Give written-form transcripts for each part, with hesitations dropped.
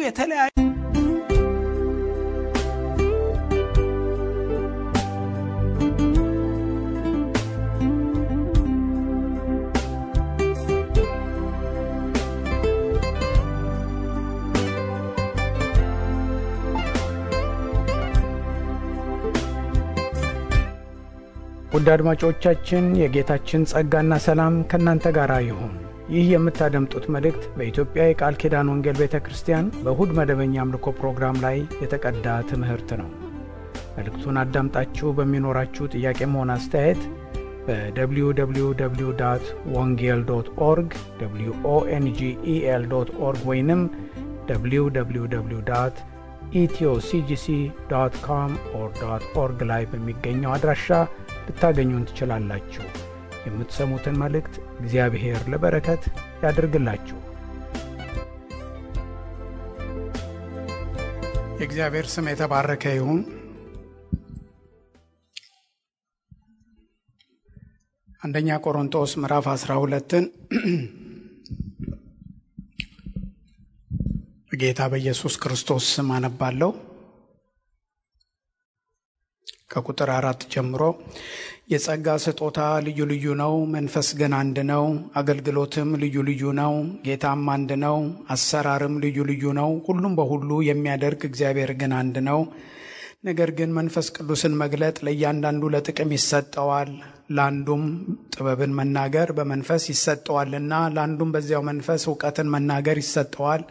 የተለያዩ ውድ አድማጮቻችን የጌታችን ጸጋና ሰላም ከናንተ ጋር ይሁን። ይህ የምታደምጡት መልእክት በኢትዮጵያ የቃል ኪዳን ወንጌል ቤተክርስቲያን በእሁድ መደበኛ አምልኮ ፕሮግራም ላይ የተቀዳ ትምህርት ነው። መልእክቱን አዳምጣችሁ በሚኖራችሁ ጥያቄም ሆነ አስተያየት በwww.wongel.org wongel.org ወይንም www.ethioCGC.com/org ላይ በሚገኘው አድራሻ ልታገኙን ትችላላችሁ። የምትሰሙትን መልእክት እግዚአብሔር ለበረከት ያድርግላችሁ። የእግዚአብሔር ስም የተባረከ ይሁን። አንደኛ ቆሮንቶስ ምዕራፍ 12ን በጌታ በኢየሱስ ክርስቶስ ስም አነባለሁ። ከቁጥር 4 ጀምሮ የጸጋ ስጦታ ልዩ ልዩ ነው፣ መንፈስ ግን አንድ ነው። አገልግሎትም ልዩ ልዩ ነው፣ ጌታም አንድ ነው። አሰራርም ልዩ ልዩ ነው፣ ሁሉም በሁሉ የሚያደርግ እግዚአብሔር ግን አንድ ነው። ነገር ግን መንፈስ ቅዱስን መግለጥ ለእያንዳንዱ ለጥቅም ይሰጠዋል። ለአንዱም ጥበብን መናገር በመንፈስ ይሰጠዋልና፣ ለአንዱም በዚያው መንፈስ ዕውቀትን መናገር ይሰጠዋል።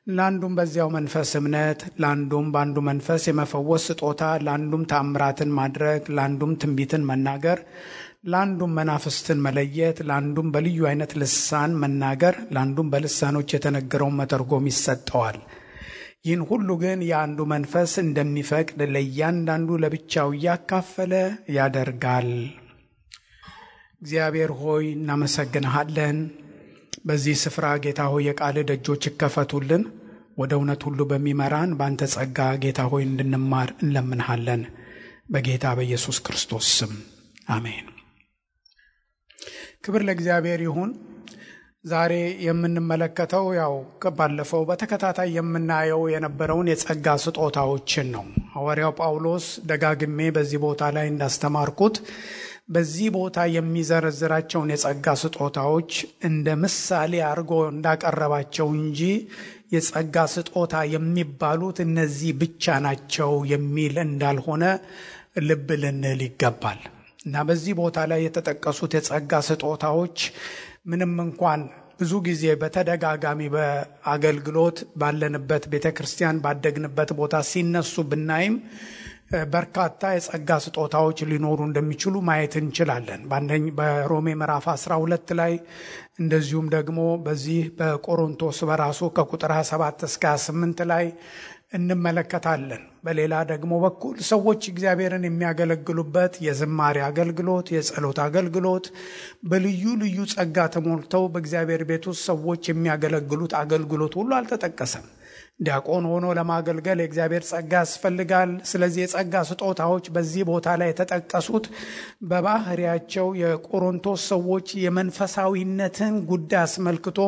ለአንዱም በዚያው መንፈስ እምነት፣ ለአንዱም በአንዱ መንፈስ የመፈወስ ስጦታ፣ ለአንዱም ተአምራትን ማድረግ፣ ለአንዱም ትንቢትን መናገር፣ ለአንዱም መናፍስትን መለየት፣ ለአንዱም በልዩ አይነት ልሳን መናገር፣ ለአንዱም በልሳኖች የተነገረውን መተርጎም ይሰጠዋል። ይህን ሁሉ ግን የአንዱ መንፈስ እንደሚፈቅድ ለእያንዳንዱ ለብቻው እያካፈለ ያደርጋል። እግዚአብሔር ሆይ እናመሰግንሃለን። በዚህ ስፍራ ጌታ ሆይ የቃል ደጆች ይከፈቱልን። ወደ እውነት ሁሉ በሚመራን በአንተ ጸጋ ጌታ ሆይ እንድንማር እንለምንሃለን። በጌታ በኢየሱስ ክርስቶስ ስም አሜን። ክብር ለእግዚአብሔር ይሁን። ዛሬ የምንመለከተው ከባለፈው በተከታታይ የምናየው የነበረውን የጸጋ ስጦታዎችን ነው። ሐዋርያው ጳውሎስ ደጋግሜ በዚህ ቦታ ላይ እንዳስተማርኩት በዚህ ቦታ የሚዘረዝራቸውን የጸጋ ስጦታዎች እንደ ምሳሌ አድርጎ እንዳቀረባቸው እንጂ የጸጋ ስጦታ የሚባሉት እነዚህ ብቻ ናቸው የሚል እንዳልሆነ ልብ ልንል ይገባል። እና በዚህ ቦታ ላይ የተጠቀሱት የጸጋ ስጦታዎች ምንም እንኳን ብዙ ጊዜ በተደጋጋሚ በአገልግሎት ባለንበት ቤተክርስቲያን ባደግንበት ቦታ ሲነሱ ብናይም በርካታ የጸጋ ስጦታዎች ሊኖሩ እንደሚችሉ ማየት እንችላለን። በሮሜ ምዕራፍ 12 ላይ እንደዚሁም ደግሞ በዚህ በቆሮንቶስ በራሱ ከቁጥር 27 እስከ 28 ላይ እንመለከታለን። በሌላ ደግሞ በኩል ሰዎች እግዚአብሔርን የሚያገለግሉበት የዝማሬ አገልግሎት፣ የጸሎት አገልግሎት፣ በልዩ ልዩ ጸጋ ተሞልተው በእግዚአብሔር ቤት ውስጥ ሰዎች የሚያገለግሉት አገልግሎት ሁሉ አልተጠቀሰም። ዲያቆን ሆኖ ለማገልገል የእግዚአብሔር ጸጋ ያስፈልጋል። ስለዚህ የጸጋ ስጦታዎች በዚህ ቦታ ላይ የተጠቀሱት በባህሪያቸው የቆሮንቶስ ሰዎች የመንፈሳዊነትን ጉዳይ አስመልክቶ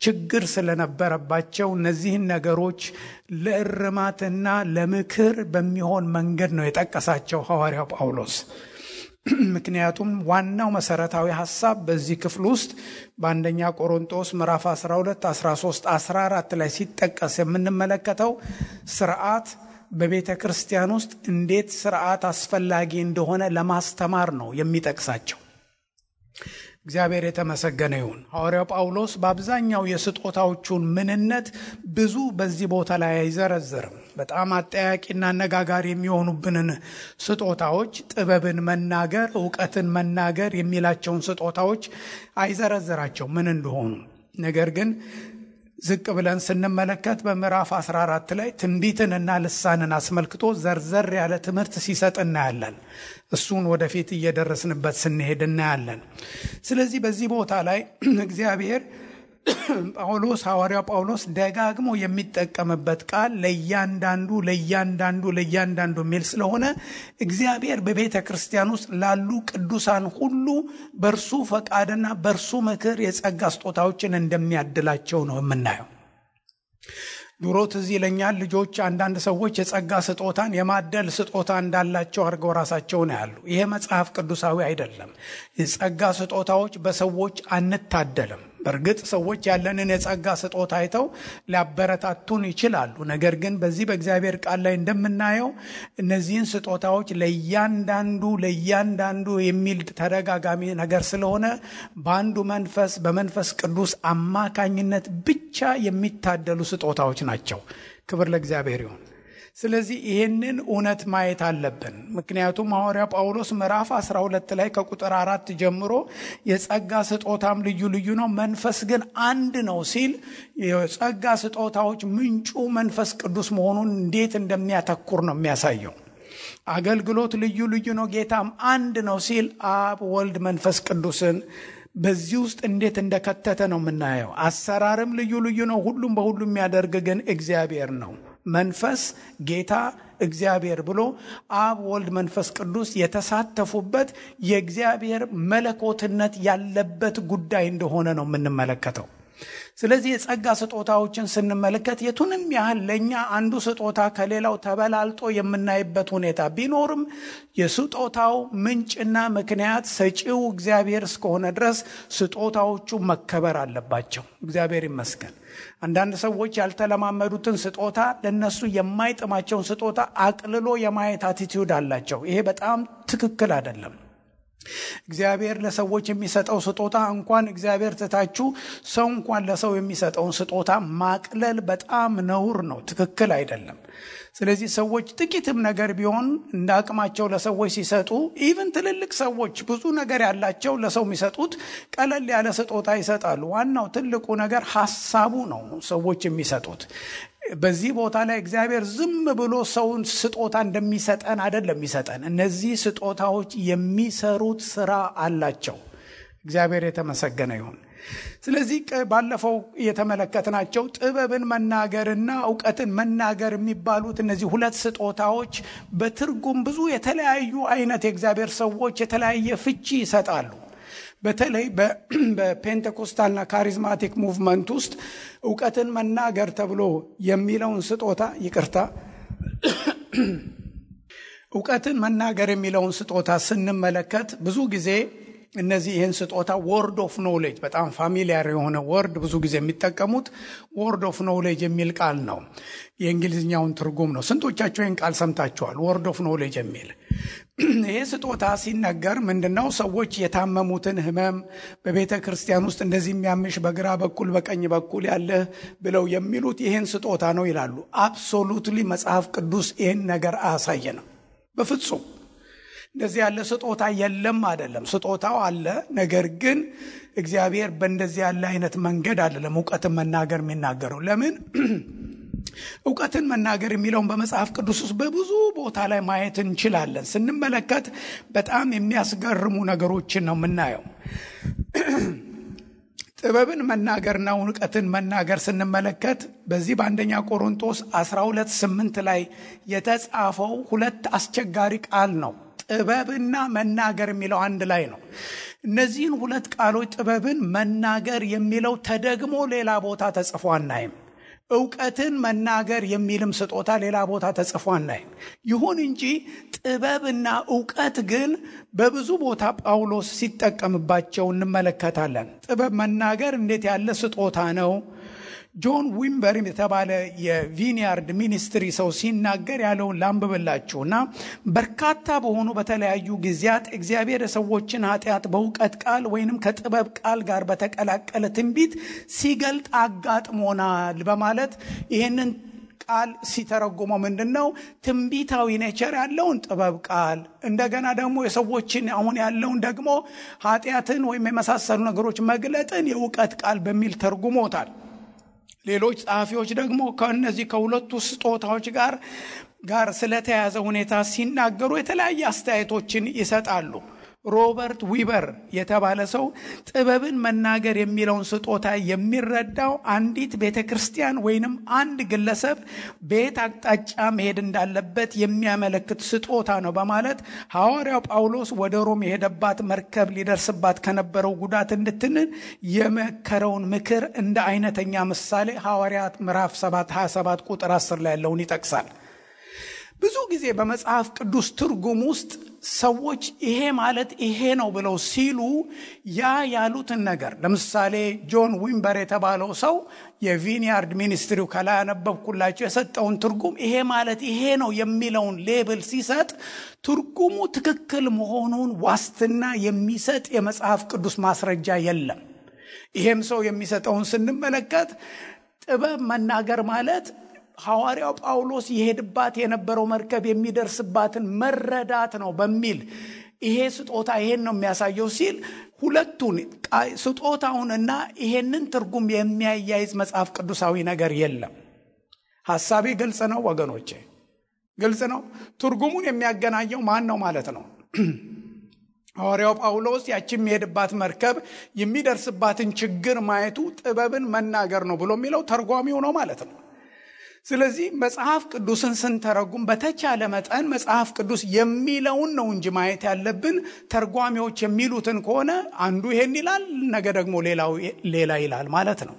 ችግር ስለነበረባቸው እነዚህን ነገሮች ለእርማትና ለምክር በሚሆን መንገድ ነው የጠቀሳቸው ሐዋርያው ጳውሎስ። ምክንያቱም ዋናው መሰረታዊ ሐሳብ በዚህ ክፍል ውስጥ በአንደኛ ቆሮንቶስ ምዕራፍ 12 13 14 ላይ ሲጠቀስ የምንመለከተው ሥርዓት በቤተ ክርስቲያን ውስጥ እንዴት ሥርዓት አስፈላጊ እንደሆነ ለማስተማር ነው የሚጠቅሳቸው። እግዚአብሔር የተመሰገነ ይሁን። ሐዋርያው ጳውሎስ በአብዛኛው የስጦታዎቹን ምንነት ብዙ በዚህ ቦታ ላይ አይዘረዝርም። በጣም አጠያቂና አነጋጋሪ የሚሆኑብንን ስጦታዎች፣ ጥበብን መናገር፣ ዕውቀትን መናገር የሚላቸውን ስጦታዎች አይዘረዝራቸው ምን እንደሆኑ። ነገር ግን ዝቅ ብለን ስንመለከት በምዕራፍ 14 ላይ ትንቢትንና ልሳንን አስመልክቶ ዘርዘር ያለ ትምህርት ሲሰጥ እናያለን። እሱን ወደፊት እየደረስንበት ስንሄድ እናያለን። ስለዚህ በዚህ ቦታ ላይ እግዚአብሔር ሐዋርያው ጳውሎስ ደጋግሞ የሚጠቀምበት ቃል ለእያንዳንዱ የሚል ስለሆነ እግዚአብሔር በቤተ ክርስቲያን ውስጥ ላሉ ቅዱሳን ሁሉ በእርሱ ፈቃድና በእርሱ ምክር የጸጋ ስጦታዎችን እንደሚያድላቸው ነው የምናየው። ድሮ ትዝ ይለኛል ልጆች አንዳንድ ሰዎች የጸጋ ስጦታን የማደል ስጦታ እንዳላቸው አድርገው ራሳቸውን ያሉ። ይሄ መጽሐፍ ቅዱሳዊ አይደለም። የጸጋ ስጦታዎች በሰዎች አንታደልም። በእርግጥ ሰዎች ያለንን የጸጋ ስጦታ አይተው ሊያበረታቱን ይችላሉ። ነገር ግን በዚህ በእግዚአብሔር ቃል ላይ እንደምናየው እነዚህን ስጦታዎች ለእያንዳንዱ የሚል ተደጋጋሚ ነገር ስለሆነ በአንዱ መንፈስ በመንፈስ ቅዱስ አማካኝነት ብቻ የሚታደሉ ስጦታዎች ናቸው። ክብር ለእግዚአብሔር ይሁን። ስለዚህ ይህንን እውነት ማየት አለብን። ምክንያቱም ሐዋርያው ጳውሎስ ምዕራፍ 12 ላይ ከቁጥር 4 ጀምሮ የጸጋ ስጦታም ልዩ ልዩ ነው፣ መንፈስ ግን አንድ ነው ሲል የጸጋ ስጦታዎች ምንጩ መንፈስ ቅዱስ መሆኑን እንዴት እንደሚያተኩር ነው የሚያሳየው። አገልግሎት ልዩ ልዩ ነው፣ ጌታም አንድ ነው ሲል አብ ወልድ መንፈስ ቅዱስን በዚህ ውስጥ እንዴት እንደከተተ ነው የምናየው። አሰራርም ልዩ ልዩ ነው፣ ሁሉም በሁሉ የሚያደርግ ግን እግዚአብሔር ነው። መንፈስ ጌታ እግዚአብሔር ብሎ አብ ወልድ መንፈስ ቅዱስ የተሳተፉበት የእግዚአብሔር መለኮትነት ያለበት ጉዳይ እንደሆነ ነው የምንመለከተው። ስለዚህ የጸጋ ስጦታዎችን ስንመለከት የቱንም ያህል ለኛ አንዱ ስጦታ ከሌላው ተበላልጦ የምናይበት ሁኔታ ቢኖርም የስጦታው ምንጭና ምክንያት ሰጪው እግዚአብሔር እስከሆነ ድረስ ስጦታዎቹ መከበር አለባቸው። እግዚአብሔር ይመስገን። አንዳንድ ሰዎች ያልተለማመዱትን ስጦታ ለነሱ የማይጥማቸውን ስጦታ አቅልሎ የማየት አቲቲዩድ አላቸው። ይሄ በጣም ትክክል አይደለም። እግዚአብሔር ለሰዎች የሚሰጠው ስጦታ እንኳን እግዚአብሔር ትታችሁ ሰው እንኳን ለሰው የሚሰጠውን ስጦታ ማቅለል በጣም ነውር ነው፣ ትክክል አይደለም። ስለዚህ ሰዎች ጥቂትም ነገር ቢሆን እንደ አቅማቸው ለሰዎች ሲሰጡ ኢቭን ትልልቅ ሰዎች ብዙ ነገር ያላቸው ለሰው የሚሰጡት ቀለል ያለ ስጦታ ይሰጣሉ። ዋናው ትልቁ ነገር ሐሳቡ ነው ሰዎች የሚሰጡት። በዚህ ቦታ ላይ እግዚአብሔር ዝም ብሎ ሰውን ስጦታ እንደሚሰጠን አይደለም የሚሰጠን። እነዚህ ስጦታዎች የሚሰሩት ስራ አላቸው። እግዚአብሔር የተመሰገነ ይሁን። ስለዚህ ባለፈው የተመለከትናቸው ጥበብን መናገርና ዕውቀትን መናገር የሚባሉት እነዚህ ሁለት ስጦታዎች በትርጉም ብዙ የተለያዩ አይነት የእግዚአብሔር ሰዎች የተለያየ ፍቺ ይሰጣሉ። በተለይ በፔንቴኮስታልና ካሪዝማቲክ ሙቭመንት ውስጥ ዕውቀትን መናገር ተብሎ የሚለውን ስጦታ ዕውቀትን መናገር የሚለውን ስጦታ ስንመለከት ብዙ ጊዜ እነዚህ ይህን ስጦታ ወርድ ኦፍ ኖሌጅ በጣም ፋሚሊያር የሆነ ወርድ ብዙ ጊዜ የሚጠቀሙት ወርድ ኦፍ ኖሌጅ የሚል ቃል ነው። የእንግሊዝኛውን ትርጉም ነው። ስንቶቻችሁ ይህን ቃል ሰምታችኋል? ወርድ ኦፍ ኖሌጅ የሚል ይሄ ስጦታ ሲነገር ምንድነው? ሰዎች የታመሙትን ህመም በቤተ ክርስቲያን ውስጥ እንደዚህ የሚያምሽ በግራ በኩል በቀኝ በኩል ያለ ብለው የሚሉት ይህን ስጦታ ነው ይላሉ። አብሶሉትሊ መጽሐፍ ቅዱስ ይህን ነገር አያሳየንም በፍጹም። እንደዚህ ያለ ስጦታ የለም አይደለም። ስጦታው አለ፣ ነገር ግን እግዚአብሔር በእንደዚህ ያለ አይነት መንገድ አይደለም ዕውቀትን መናገር የሚናገረው። ለምን? ዕውቀትን መናገር የሚለውን በመጽሐፍ ቅዱስ ውስጥ በብዙ ቦታ ላይ ማየት እንችላለን። ስንመለከት በጣም የሚያስገርሙ ነገሮችን ነው የምናየው። ጥበብን መናገርና ዕውቀትን መናገር ስንመለከት በዚህ በአንደኛ ቆሮንቶስ 12:8 ላይ የተጻፈው ሁለት አስቸጋሪ ቃል ነው። ጥበብና መናገር የሚለው አንድ ላይ ነው። እነዚህን ሁለት ቃሎች ጥበብን መናገር የሚለው ተደግሞ ሌላ ቦታ ተጽፎ አናይም። ዕውቀትን መናገር የሚልም ስጦታ ሌላ ቦታ ተጽፎ አናይም። ይሁን እንጂ ጥበብና ዕውቀት ግን በብዙ ቦታ ጳውሎስ ሲጠቀምባቸው እንመለከታለን። ጥበብ መናገር እንዴት ያለ ስጦታ ነው! ጆን ዊምበር የተባለ የቪኒያርድ ሚኒስትሪ ሰው ሲናገር ያለውን ላንብብላችሁና በርካታ በሆኑ በተለያዩ ጊዜያት እግዚአብሔር የሰዎችን ኃጢአት በዕውቀት ቃል ወይንም ከጥበብ ቃል ጋር በተቀላቀለ ትንቢት ሲገልጥ አጋጥሞናል በማለት ይህንን ቃል ሲተረጉመው ምንድነው? ትንቢታዊ ኔቸር ያለውን ጥበብ ቃል፣ እንደገና ደግሞ የሰዎችን አሁን ያለውን ደግሞ ኃጢአትን ወይም የመሳሰሉ ነገሮች መግለጥን የዕውቀት ቃል በሚል ተርጉሞታል። ሌሎች ጸሐፊዎች ደግሞ ከነዚህ ከሁለቱ ስጦታዎች ጋር ስለተያዘ ሁኔታ ሲናገሩ የተለያየ አስተያየቶችን ይሰጣሉ። ሮበርት ዊበር የተባለ ሰው ጥበብን መናገር የሚለውን ስጦታ የሚረዳው አንዲት ቤተክርስቲያን ወይንም አንድ ግለሰብ በየት አቅጣጫ መሄድ እንዳለበት የሚያመለክት ስጦታ ነው በማለት ሐዋርያው ጳውሎስ ወደ ሮም የሄደባት መርከብ ሊደርስባት ከነበረው ጉዳት እንድትድን የመከረውን ምክር እንደ አይነተኛ ምሳሌ ሐዋርያት ምዕራፍ 7:27 ቁጥር 10 ላይ ያለውን ይጠቅሳል። ብዙ ጊዜ በመጽሐፍ ቅዱስ ትርጉም ውስጥ ሰዎች ይሄ ማለት ይሄ ነው ብለው ሲሉ ያሉትን ነገር ለምሳሌ ጆን ዊምበር የተባለው ሰው የቪኒያርድ ሚኒስትሪው ከላይ ያነበብኩላችሁ የሰጠውን ትርጉም ይሄ ማለት ይሄ ነው የሚለውን ሌብል ሲሰጥ ትርጉሙ ትክክል መሆኑን ዋስትና የሚሰጥ የመጽሐፍ ቅዱስ ማስረጃ የለም። ይሄም ሰው የሚሰጠውን ስንመለከት ጥበብ መናገር ማለት ሐዋርያው ጳውሎስ የሄድባት የነበረው መርከብ የሚደርስባትን መረዳት ነው በሚል ይሄ ስጦታ ይሄን ነው የሚያሳየው ሲል ሁለቱን ስጦታውንና ይሄንን ትርጉም የሚያያይዝ መጽሐፍ ቅዱሳዊ ነገር የለም። ሐሳቤ ግልጽ ነው ወገኖቼ? ግልጽ ነው። ትርጉሙን የሚያገናኘው ማን ነው ማለት ነው? ሐዋርያው ጳውሎስ ያቺም የሄድባት መርከብ የሚደርስባትን ችግር ማየቱ ጥበብን መናገር ነው ብሎ የሚለው ተርጓሚው ነው ማለት ነው። ስለዚህ መጽሐፍ ቅዱስን ስንተረጉም በተቻለ መጠን መጽሐፍ ቅዱስ የሚለውን ነው እንጂ ማየት ያለብን ተርጓሚዎች የሚሉትን ከሆነ አንዱ ይሄን ይላል ነገ ደግሞ ሌላ ይላል ማለት ነው።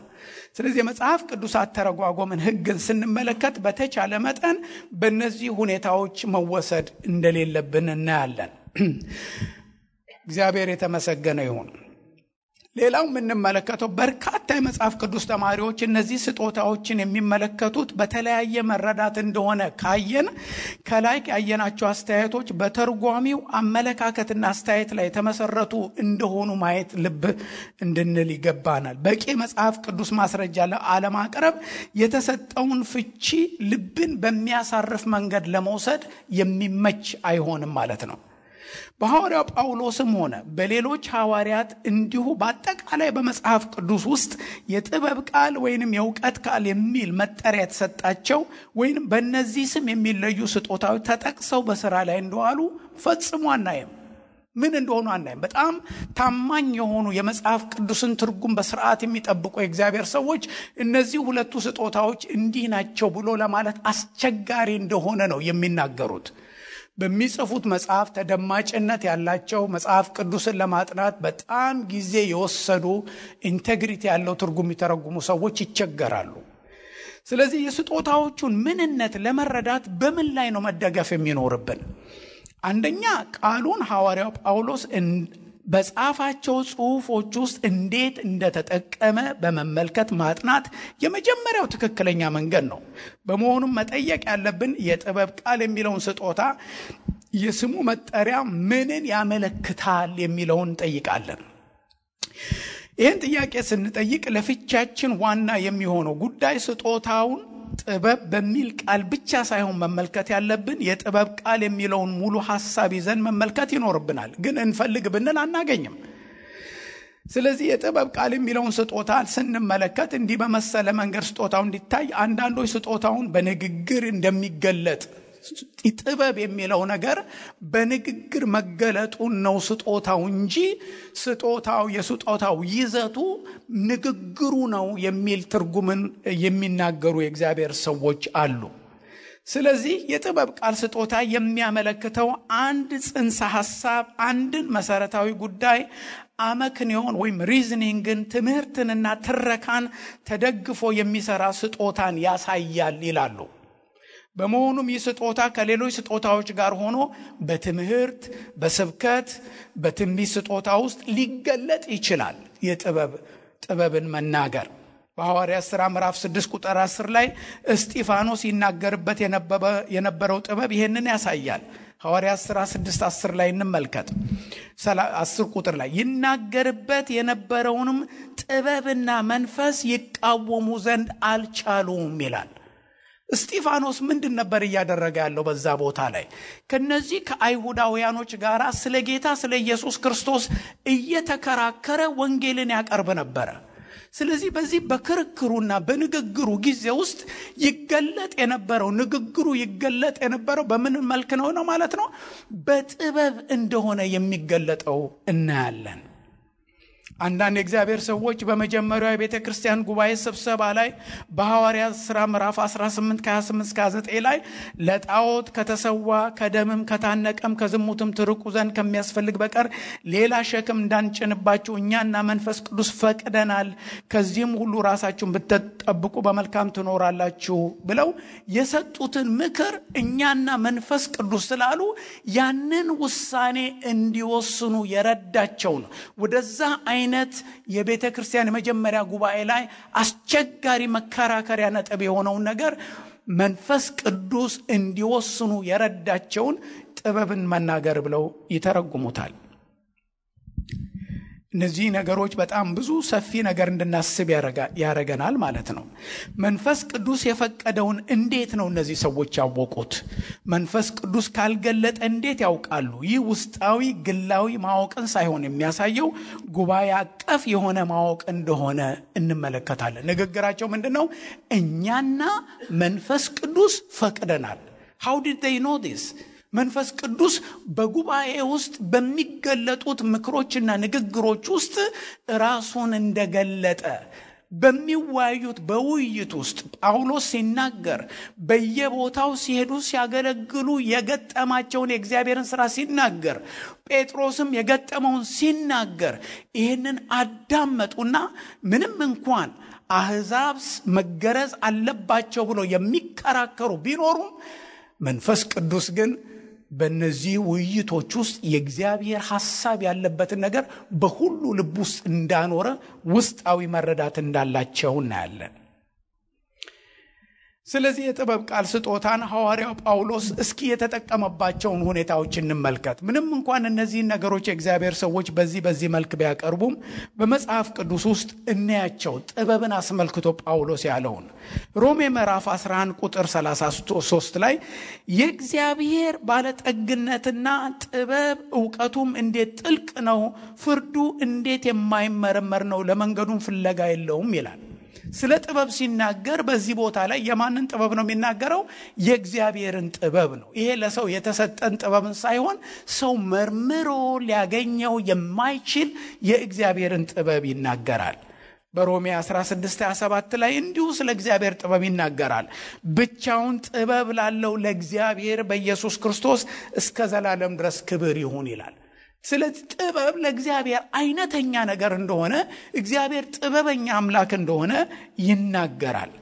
ስለዚህ መጽሐፍ ቅዱስ አተረጓጎምን ሕግን ስንመለከት በተቻለ መጠን በእነዚህ ሁኔታዎች መወሰድ እንደሌለብን እናያለን። እግዚአብሔር የተመሰገነ ይሁን። ሌላው የምንመለከተው በርካታ የመጽሐፍ ቅዱስ ተማሪዎች እነዚህ ስጦታዎችን የሚመለከቱት በተለያየ መረዳት እንደሆነ ካየን ከላይ ያየናቸው አስተያየቶች በተርጓሚው አመለካከትና አስተያየት ላይ የተመሰረቱ እንደሆኑ ማየት ልብ እንድንል ይገባናል። በቂ መጽሐፍ ቅዱስ ማስረጃ ለማቅረብ የተሰጠውን ፍቺ ልብን በሚያሳርፍ መንገድ ለመውሰድ የሚመች አይሆንም ማለት ነው። በሐዋርያው ጳውሎስም ሆነ በሌሎች ሐዋርያት እንዲሁ በአጠቃላይ በመጽሐፍ ቅዱስ ውስጥ የጥበብ ቃል ወይንም የእውቀት ቃል የሚል መጠሪያ የተሰጣቸው ወይንም በእነዚህ ስም የሚለዩ ስጦታዎች ተጠቅሰው በሥራ ላይ እንደዋሉ ፈጽሞ አናይም። ምን እንደሆኑ አናይም። በጣም ታማኝ የሆኑ የመጽሐፍ ቅዱስን ትርጉም በስርዓት የሚጠብቁ የእግዚአብሔር ሰዎች እነዚህ ሁለቱ ስጦታዎች እንዲህ ናቸው ብሎ ለማለት አስቸጋሪ እንደሆነ ነው የሚናገሩት። በሚጽፉት መጽሐፍ ተደማጭነት ያላቸው መጽሐፍ ቅዱስን ለማጥናት በጣም ጊዜ የወሰዱ ኢንቴግሪቲ ያለው ትርጉም የተረጉሙ ሰዎች ይቸገራሉ። ስለዚህ የስጦታዎቹን ምንነት ለመረዳት በምን ላይ ነው መደገፍ የሚኖርብን? አንደኛ ቃሉን ሐዋርያው ጳውሎስ በጻፋቸው ጽሑፎች ውስጥ እንዴት እንደተጠቀመ በመመልከት ማጥናት የመጀመሪያው ትክክለኛ መንገድ ነው። በመሆኑም መጠየቅ ያለብን የጥበብ ቃል የሚለውን ስጦታ የስሙ መጠሪያ ምንን ያመለክታል የሚለውን እንጠይቃለን። ይህን ጥያቄ ስንጠይቅ ለፍቻችን ዋና የሚሆነው ጉዳይ ስጦታውን ጥበብ በሚል ቃል ብቻ ሳይሆን መመልከት ያለብን የጥበብ ቃል የሚለውን ሙሉ ሐሳብ ይዘን መመልከት ይኖርብናል። ግን እንፈልግ ብንል አናገኝም። ስለዚህ የጥበብ ቃል የሚለውን ስጦታ ስንመለከት እንዲህ በመሰለ መንገድ ስጦታው እንዲታይ አንዳንዶች ስጦታውን በንግግር እንደሚገለጥ ጥበብ የሚለው ነገር በንግግር መገለጡን ነው ስጦታው እንጂ የስጦታው ይዘቱ ንግግሩ ነው የሚል ትርጉምን የሚናገሩ የእግዚአብሔር ሰዎች አሉ። ስለዚህ የጥበብ ቃል ስጦታ የሚያመለክተው አንድ ጽንሰ ሐሳብ፣ አንድን መሰረታዊ ጉዳይ አመክንዮን ወይም ሪዝኒንግን፣ ትምህርትንና ትረካን ተደግፎ የሚሰራ ስጦታን ያሳያል ይላሉ። በመሆኑም ይህ ስጦታ ከሌሎች ስጦታዎች ጋር ሆኖ በትምህርት፣ በስብከት፣ በትንቢት ስጦታ ውስጥ ሊገለጥ ይችላል። የጥበብን መናገር በሐዋርያት ሥራ ምዕራፍ 6 ቁጥር 10 ላይ እስጢፋኖስ ይናገርበት የነበረው ጥበብ ይሄንን ያሳያል። ሐዋርያት ሥራ 6:10 ላይ እንመልከት። 10 ቁጥር ላይ ይናገርበት የነበረውንም ጥበብና መንፈስ ይቃወሙ ዘንድ አልቻሉም ይላል። እስጢፋኖስ ምንድን ነበር እያደረገ ያለው በዛ ቦታ ላይ? ከነዚህ ከአይሁዳውያኖች ጋር ስለ ጌታ ስለ ኢየሱስ ክርስቶስ እየተከራከረ ወንጌልን ያቀርብ ነበር። ስለዚህ በዚህ በክርክሩና በንግግሩ ጊዜ ውስጥ ይገለጥ የነበረው ንግግሩ ይገለጥ የነበረው በምን መልክ ነው ማለት ነው? በጥበብ እንደሆነ የሚገለጠው እናያለን። አንዳንድ የእግዚአብሔር ሰዎች በመጀመሪያው የቤተ ክርስቲያን ጉባኤ ስብሰባ ላይ በሐዋርያት ሥራ ምዕራፍ 18 ከ28-29 ላይ ለጣዖት ከተሰዋ ከደምም ከታነቀም ከዝሙትም ትርቁ ዘንድ ከሚያስፈልግ በቀር ሌላ ሸክም እንዳንጭንባችሁ እኛና መንፈስ ቅዱስ ፈቅደናል፣ ከዚህም ሁሉ ራሳችሁን ብትጠብቁ በመልካም ትኖራላችሁ ብለው የሰጡትን ምክር እኛና መንፈስ ቅዱስ ስላሉ ያንን ውሳኔ እንዲወስኑ የረዳቸው ነው። ወደዛ አይነት የቤተ ክርስቲያን የመጀመሪያ ጉባኤ ላይ አስቸጋሪ መከራከሪያ ነጥብ የሆነውን ነገር መንፈስ ቅዱስ እንዲወስኑ የረዳቸውን ጥበብን መናገር ብለው ይተረጉሙታል። እነዚህ ነገሮች በጣም ብዙ ሰፊ ነገር እንድናስብ ያረገናል ማለት ነው። መንፈስ ቅዱስ የፈቀደውን እንዴት ነው እነዚህ ሰዎች ያወቁት? መንፈስ ቅዱስ ካልገለጠ እንዴት ያውቃሉ? ይህ ውስጣዊ ግላዊ ማወቅን ሳይሆን የሚያሳየው ጉባኤ አቀፍ የሆነ ማወቅ እንደሆነ እንመለከታለን። ንግግራቸው ምንድነው? እኛና መንፈስ ቅዱስ ፈቅደናል። How did they know this? መንፈስ ቅዱስ በጉባኤ ውስጥ በሚገለጡት ምክሮችና ንግግሮች ውስጥ ራሱን እንደገለጠ በሚወያዩት በውይይት ውስጥ ጳውሎስ ሲናገር፣ በየቦታው ሲሄዱ ሲያገለግሉ የገጠማቸውን የእግዚአብሔርን ሥራ ሲናገር፣ ጴጥሮስም የገጠመውን ሲናገር ይህንን አዳመጡና ምንም እንኳን አሕዛብ መገረዝ አለባቸው ብሎ የሚከራከሩ ቢኖሩም መንፈስ ቅዱስ ግን በእነዚህ ውይይቶች ውስጥ የእግዚአብሔር ሐሳብ ያለበትን ነገር በሁሉ ልብ ውስጥ እንዳኖረ ውስጣዊ መረዳት እንዳላቸው እናያለን። ስለዚህ የጥበብ ቃል ስጦታን ሐዋርያው ጳውሎስ እስኪ የተጠቀመባቸውን ሁኔታዎች እንመልከት። ምንም እንኳን እነዚህን ነገሮች የእግዚአብሔር ሰዎች በዚህ መልክ ቢያቀርቡም በመጽሐፍ ቅዱስ ውስጥ እናያቸው ጥበብን አስመልክቶ ጳውሎስ ያለውን ሮሜ ምዕራፍ 11 ቁጥር 33 ላይ የእግዚአብሔር ባለጠግነትና ጥበብ ዕውቀቱም እንዴት ጥልቅ ነው፣ ፍርዱ እንዴት የማይመረመር ነው፣ ለመንገዱም ፍለጋ የለውም ይላል። ስለ ጥበብ ሲናገር በዚህ ቦታ ላይ የማንን ጥበብ ነው የሚናገረው? የእግዚአብሔርን ጥበብ ነው። ይሄ ለሰው የተሰጠን ጥበብን ሳይሆን ሰው መርምሮ ሊያገኘው የማይችል የእግዚአብሔርን ጥበብ ይናገራል። በሮሜ 16:27 ላይ እንዲሁ ስለ እግዚአብሔር ጥበብ ይናገራል። ብቻውን ጥበብ ላለው ለእግዚአብሔር በኢየሱስ ክርስቶስ እስከ ዘላለም ድረስ ክብር ይሁን ይላል። ስለዚህ ጥበብ ለእግዚአብሔር አይነተኛ ነገር እንደሆነ፣ እግዚአብሔር ጥበበኛ አምላክ እንደሆነ ይናገራል።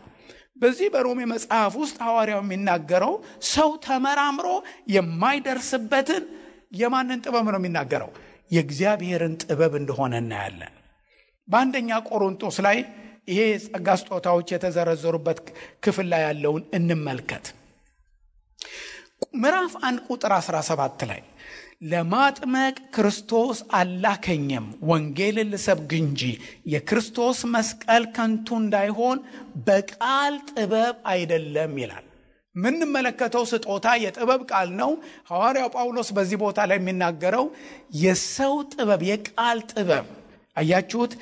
በዚህ በሮሜ መጽሐፍ ውስጥ ሐዋርያው የሚናገረው ሰው ተመራምሮ የማይደርስበትን የማንን ጥበብ ነው የሚናገረው? የእግዚአብሔርን ጥበብ እንደሆነ እናያለን። በአንደኛ ቆሮንቶስ ላይ ይሄ ጸጋ ስጦታዎች የተዘረዘሩበት ክፍል ላይ ያለውን እንመልከት። ምዕራፍ 1 ቁጥር 17 ላይ ለማጥመቅ ክርስቶስ አላከኝም፣ ወንጌልን ልሰብክ እንጂ የክርስቶስ መስቀል ከንቱ እንዳይሆን በቃል ጥበብ አይደለም ይላል። ምንመለከተው ስጦታ የጥበብ ቃል ነው። ሐዋርያው ጳውሎስ በዚህ ቦታ ላይ የሚናገረው የሰው ጥበብ፣ የቃል ጥበብ አያችሁት፣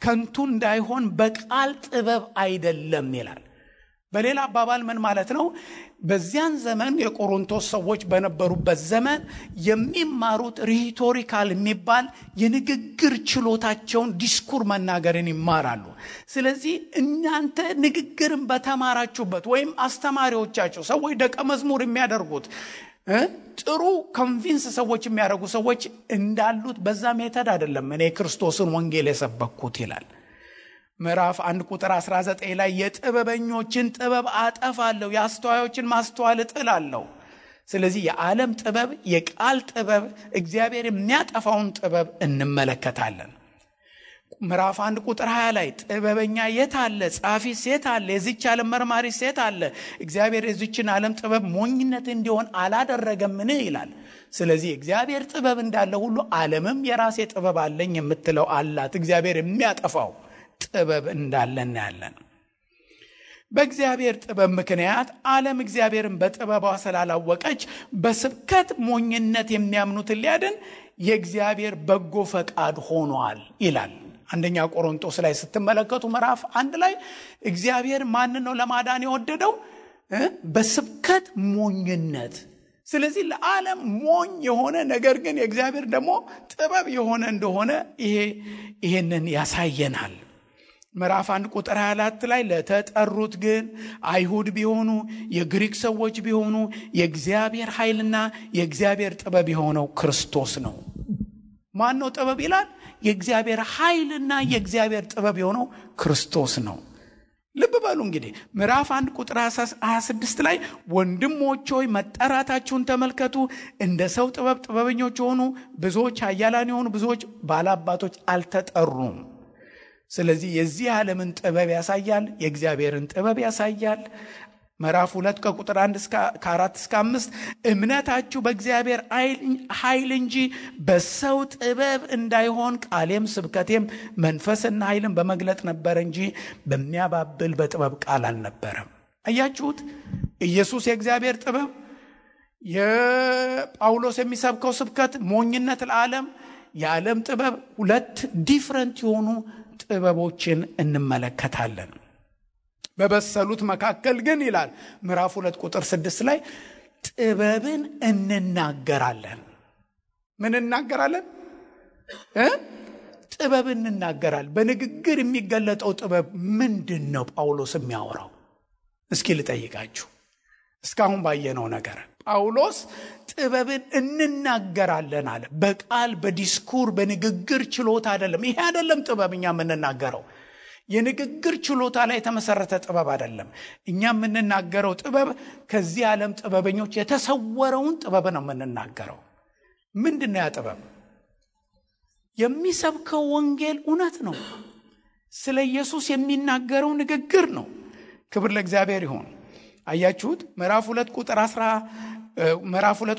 ከንቱ እንዳይሆን በቃል ጥበብ አይደለም ይላል። በሌላ አባባል ምን ማለት ነው? በዚያን ዘመን የቆሮንቶስ ሰዎች በነበሩበት ዘመን የሚማሩት ሪቶሪካል የሚባል የንግግር ችሎታቸውን ዲስኩር መናገርን ይማራሉ። ስለዚህ እናንተ ንግግርን በተማራችሁበት ወይም አስተማሪዎቻችሁ ሰዎች ደቀ መዝሙር የሚያደርጉት ጥሩ ኮንቪንስ ሰዎች የሚያደርጉ ሰዎች እንዳሉት በዛ ሜተድ አይደለም እኔ ክርስቶስን ወንጌል የሰበኩት ይላል። ምዕራፍ 1 ቁጥር 19 ላይ የጥበበኞችን ጥበብ አጠፋለሁ፣ የአስተዋዮችን ማስተዋል እጥላለሁ። ስለዚህ የዓለም ጥበብ፣ የቃል ጥበብ፣ እግዚአብሔር የሚያጠፋውን ጥበብ እንመለከታለን። ምዕራፍ 1 ቁጥር 20 ላይ ጥበበኛ የት አለ? ጻፊስ የት አለ? የዚች ዓለም መርማሪስ የት አለ? እግዚአብሔር የዚችን ዓለም ጥበብ ሞኝነት እንዲሆን አላደረገምን ይላል። ስለዚህ እግዚአብሔር ጥበብ እንዳለ ሁሉ ዓለምም የራሴ ጥበብ አለኝ የምትለው አላት። እግዚአብሔር የሚያጠፋው ጥበብ እንዳለ እናያለን። በእግዚአብሔር ጥበብ ምክንያት ዓለም እግዚአብሔርን በጥበቧ ስላላወቀች በስብከት ሞኝነት የሚያምኑትን ሊያድን የእግዚአብሔር በጎ ፈቃድ ሆኗል ይላል አንደኛ ቆሮንቶስ ላይ ስትመለከቱ ምዕራፍ 1 ላይ እግዚአብሔር ማን ነው ለማዳን የወደደው? በስብከት ሞኝነት። ስለዚህ ለዓለም ሞኝ የሆነ ነገር ግን የእግዚአብሔር ደግሞ ጥበብ የሆነ እንደሆነ ይሄንን ያሳየናል። ምዕራፍ 1 ቁጥር 24 ላይ ለተጠሩት ግን አይሁድ ቢሆኑ የግሪክ ሰዎች ቢሆኑ የእግዚአብሔር ኃይልና የእግዚአብሔር ጥበብ የሆነው ክርስቶስ ነው። ማን ነው ጥበብ ይላል? የእግዚአብሔር ኃይልና የእግዚአብሔር ጥበብ የሆነው ክርስቶስ ነው። ልብ በሉ እንግዲህ ምዕራፍ 1 ቁጥር 26 ላይ ወንድሞች ሆይ መጠራታችሁን ተመልከቱ። እንደ ሰው ጥበብ ጥበበኞች ሆኑ፣ ብዙዎች ኃያላን የሆኑ ብዙዎች ባላባቶች አልተጠሩም። ስለዚህ የዚህ ዓለምን ጥበብ ያሳያል፣ የእግዚአብሔርን ጥበብ ያሳያል። ምዕራፍ 2 ከቁጥር 1 እስከ 4 እስከ 5 እምነታችሁ በእግዚአብሔር ኃይል እንጂ በሰው ጥበብ እንዳይሆን ቃሌም ስብከቴም መንፈስና ኃይልን በመግለጥ ነበር እንጂ በሚያባብል በጥበብ ቃል አልነበረም። አያችሁት? ኢየሱስ የእግዚአብሔር ጥበብ፣ የጳውሎስ የሚሰብከው ስብከት ሞኝነት ለዓለም፣ የዓለም ጥበብ፣ ሁለት ዲፍረንት የሆኑ ጥበቦችን እንመለከታለን። በበሰሉት መካከል ግን ይላል ምዕራፍ 2 ቁጥር 6 ላይ ጥበብን እንናገራለን። ምን እናገራለን? ጥበብን እንናገራለን። በንግግር የሚገለጠው ጥበብ ምንድን ነው? ጳውሎስ የሚያወራው እስኪ ልጠይቃችሁ። እስካሁን ባየነው ነገር ጳውሎስ ጥበብን እንናገራለን አለ። በቃል በዲስኩር በንግግር ችሎታ አይደለም። ይሄ አይደለም ጥበብኛ የምንናገረው። የንግግር ችሎታ ላይ የተመሰረተ ጥበብ አይደለም። እኛ የምንናገረው ጥበብ ከዚህ ዓለም ጥበበኞች የተሰወረውን ጥበብ ነው የምንናገረው። ምንድነው ያ ጥበብ? የሚሰብከው ወንጌል እውነት ነው። ስለ ኢየሱስ የሚናገረው ንግግር ነው። ክብር ለእግዚአብሔር ይሁን። አያችሁት? ምዕራፍ 2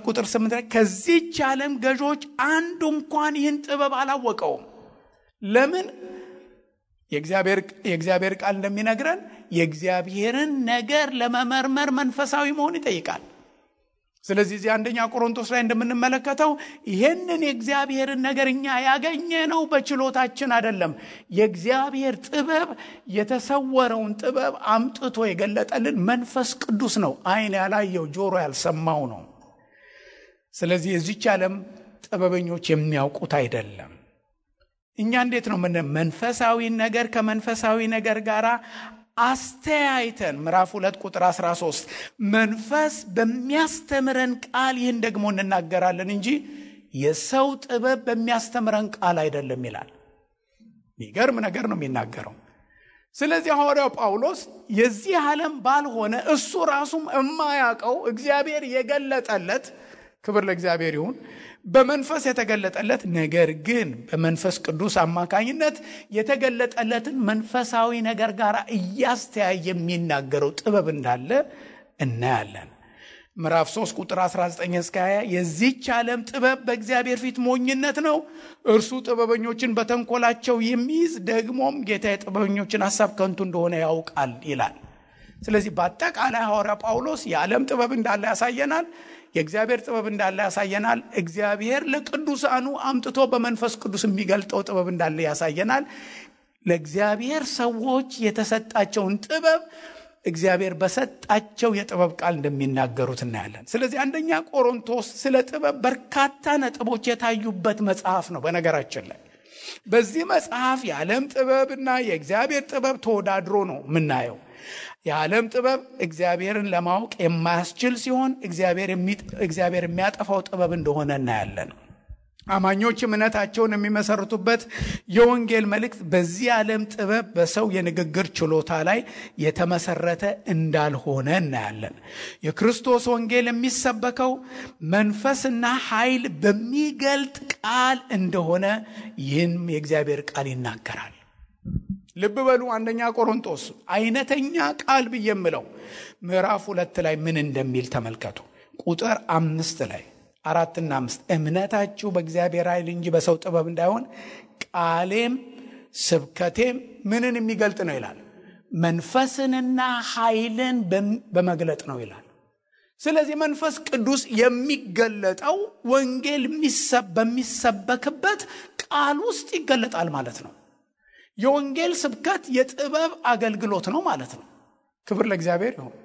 ቁጥር 8 ላይ ከዚህች ዓለም ገዦች አንዱ እንኳን ይህን ጥበብ አላወቀውም። ለምን? የእግዚአብሔር ቃል እንደሚነግረን የእግዚአብሔርን ነገር ለመመርመር መንፈሳዊ መሆን ይጠይቃል። ስለዚህ እዚህ አንደኛ ቆሮንቶስ ላይ እንደምንመለከተው ይሄንን የእግዚአብሔርን ነገር እኛ ያገኘነው በችሎታችን አይደለም። የእግዚአብሔር ጥበብ የተሰወረውን ጥበብ አምጥቶ የገለጠልን መንፈስ ቅዱስ ነው። ዓይን ያላየው ጆሮ ያልሰማው ነው። ስለዚህ የዚህች ዓለም ጥበበኞች የሚያውቁት አይደለም። እኛ እንዴት ነው መንፈሳዊ ነገር ከመንፈሳዊ ነገር ጋር አስተያይተን ምዕራፍ 2 ቁጥር 13 መንፈስ በሚያስተምረን ቃል ይህን ደግሞ እንናገራለን እንጂ የሰው ጥበብ በሚያስተምረን ቃል አይደለም ይላል። የሚገርም ነገር ነው የሚናገረው። ስለዚህ ሐዋርያው ጳውሎስ የዚህ ዓለም ባልሆነ እሱ ራሱም የማያውቀው እግዚአብሔር የገለጠለት፣ ክብር ለእግዚአብሔር ይሁን፣ በመንፈስ የተገለጠለት ነገር ግን በመንፈስ ቅዱስ አማካኝነት የተገለጠለትን መንፈሳዊ ነገር ጋር እያስተያየ የሚናገረው ጥበብ እንዳለ እናያለን። ምዕራፍ 3 ቁጥር 19 እስከ 20 የዚህች ዓለም ጥበብ በእግዚአብሔር ፊት ሞኝነት ነው፣ እርሱ ጥበበኞችን በተንኮላቸው የሚይዝ ደግሞም ጌታ የጥበበኞችን ሐሳብ ከንቱ እንደሆነ ያውቃል ይላል። ስለዚህ በአጠቃላይ ሐዋርያ ጳውሎስ የዓለም ጥበብ እንዳለ ያሳየናል፣ የእግዚአብሔር ጥበብ እንዳለ ያሳየናል። እግዚአብሔር ለቅዱሳኑ አምጥቶ በመንፈስ ቅዱስ የሚገልጠው ጥበብ እንዳለ ያሳየናል። ለእግዚአብሔር ሰዎች የተሰጣቸውን ጥበብ እግዚአብሔር በሰጣቸው የጥበብ ቃል እንደሚናገሩት እናያለን። ስለዚህ አንደኛ ቆሮንቶስ ስለ ጥበብ በርካታ ነጥቦች የታዩበት መጽሐፍ ነው። በነገራችን ላይ በዚህ መጽሐፍ የዓለም ጥበብና የእግዚአብሔር ጥበብ ተወዳድሮ ነው የምናየው። የዓለም ጥበብ እግዚአብሔርን ለማወቅ የማያስችል ሲሆን እግዚአብሔር የሚያጠፋው ጥበብ እንደሆነ እናያለን። አማኞች እምነታቸውን የሚመሰርቱበት የወንጌል መልእክት በዚህ ዓለም ጥበብ በሰው የንግግር ችሎታ ላይ የተመሰረተ እንዳልሆነ እናያለን። የክርስቶስ ወንጌል የሚሰበከው መንፈስና ኃይል በሚገልጥ ቃል እንደሆነ ይህን የእግዚአብሔር ቃል ይናገራል። ልብ በሉ። አንደኛ ቆሮንቶስ አይነተኛ ቃል ብየምለው ምዕራፍ 2 ላይ ምን እንደሚል ተመልከቱ። ቁጥር 5 ላይ 4 እና 5 እምነታችሁ በእግዚአብሔር ኃይል እንጂ በሰው ጥበብ እንዳይሆን ቃሌም ስብከቴም ምንን የሚገልጥ ነው ይላል? መንፈስንና ኃይልን በመግለጥ ነው ይላል። ስለዚህ መንፈስ ቅዱስ የሚገለጠው ወንጌል በሚሰበክበት ቃል ውስጥ ይገለጣል ማለት ነው። የወንጌል ስብከት የጥበብ አገልግሎት ነው ማለት ነው። ክብር ለእግዚአብሔር ይሁን።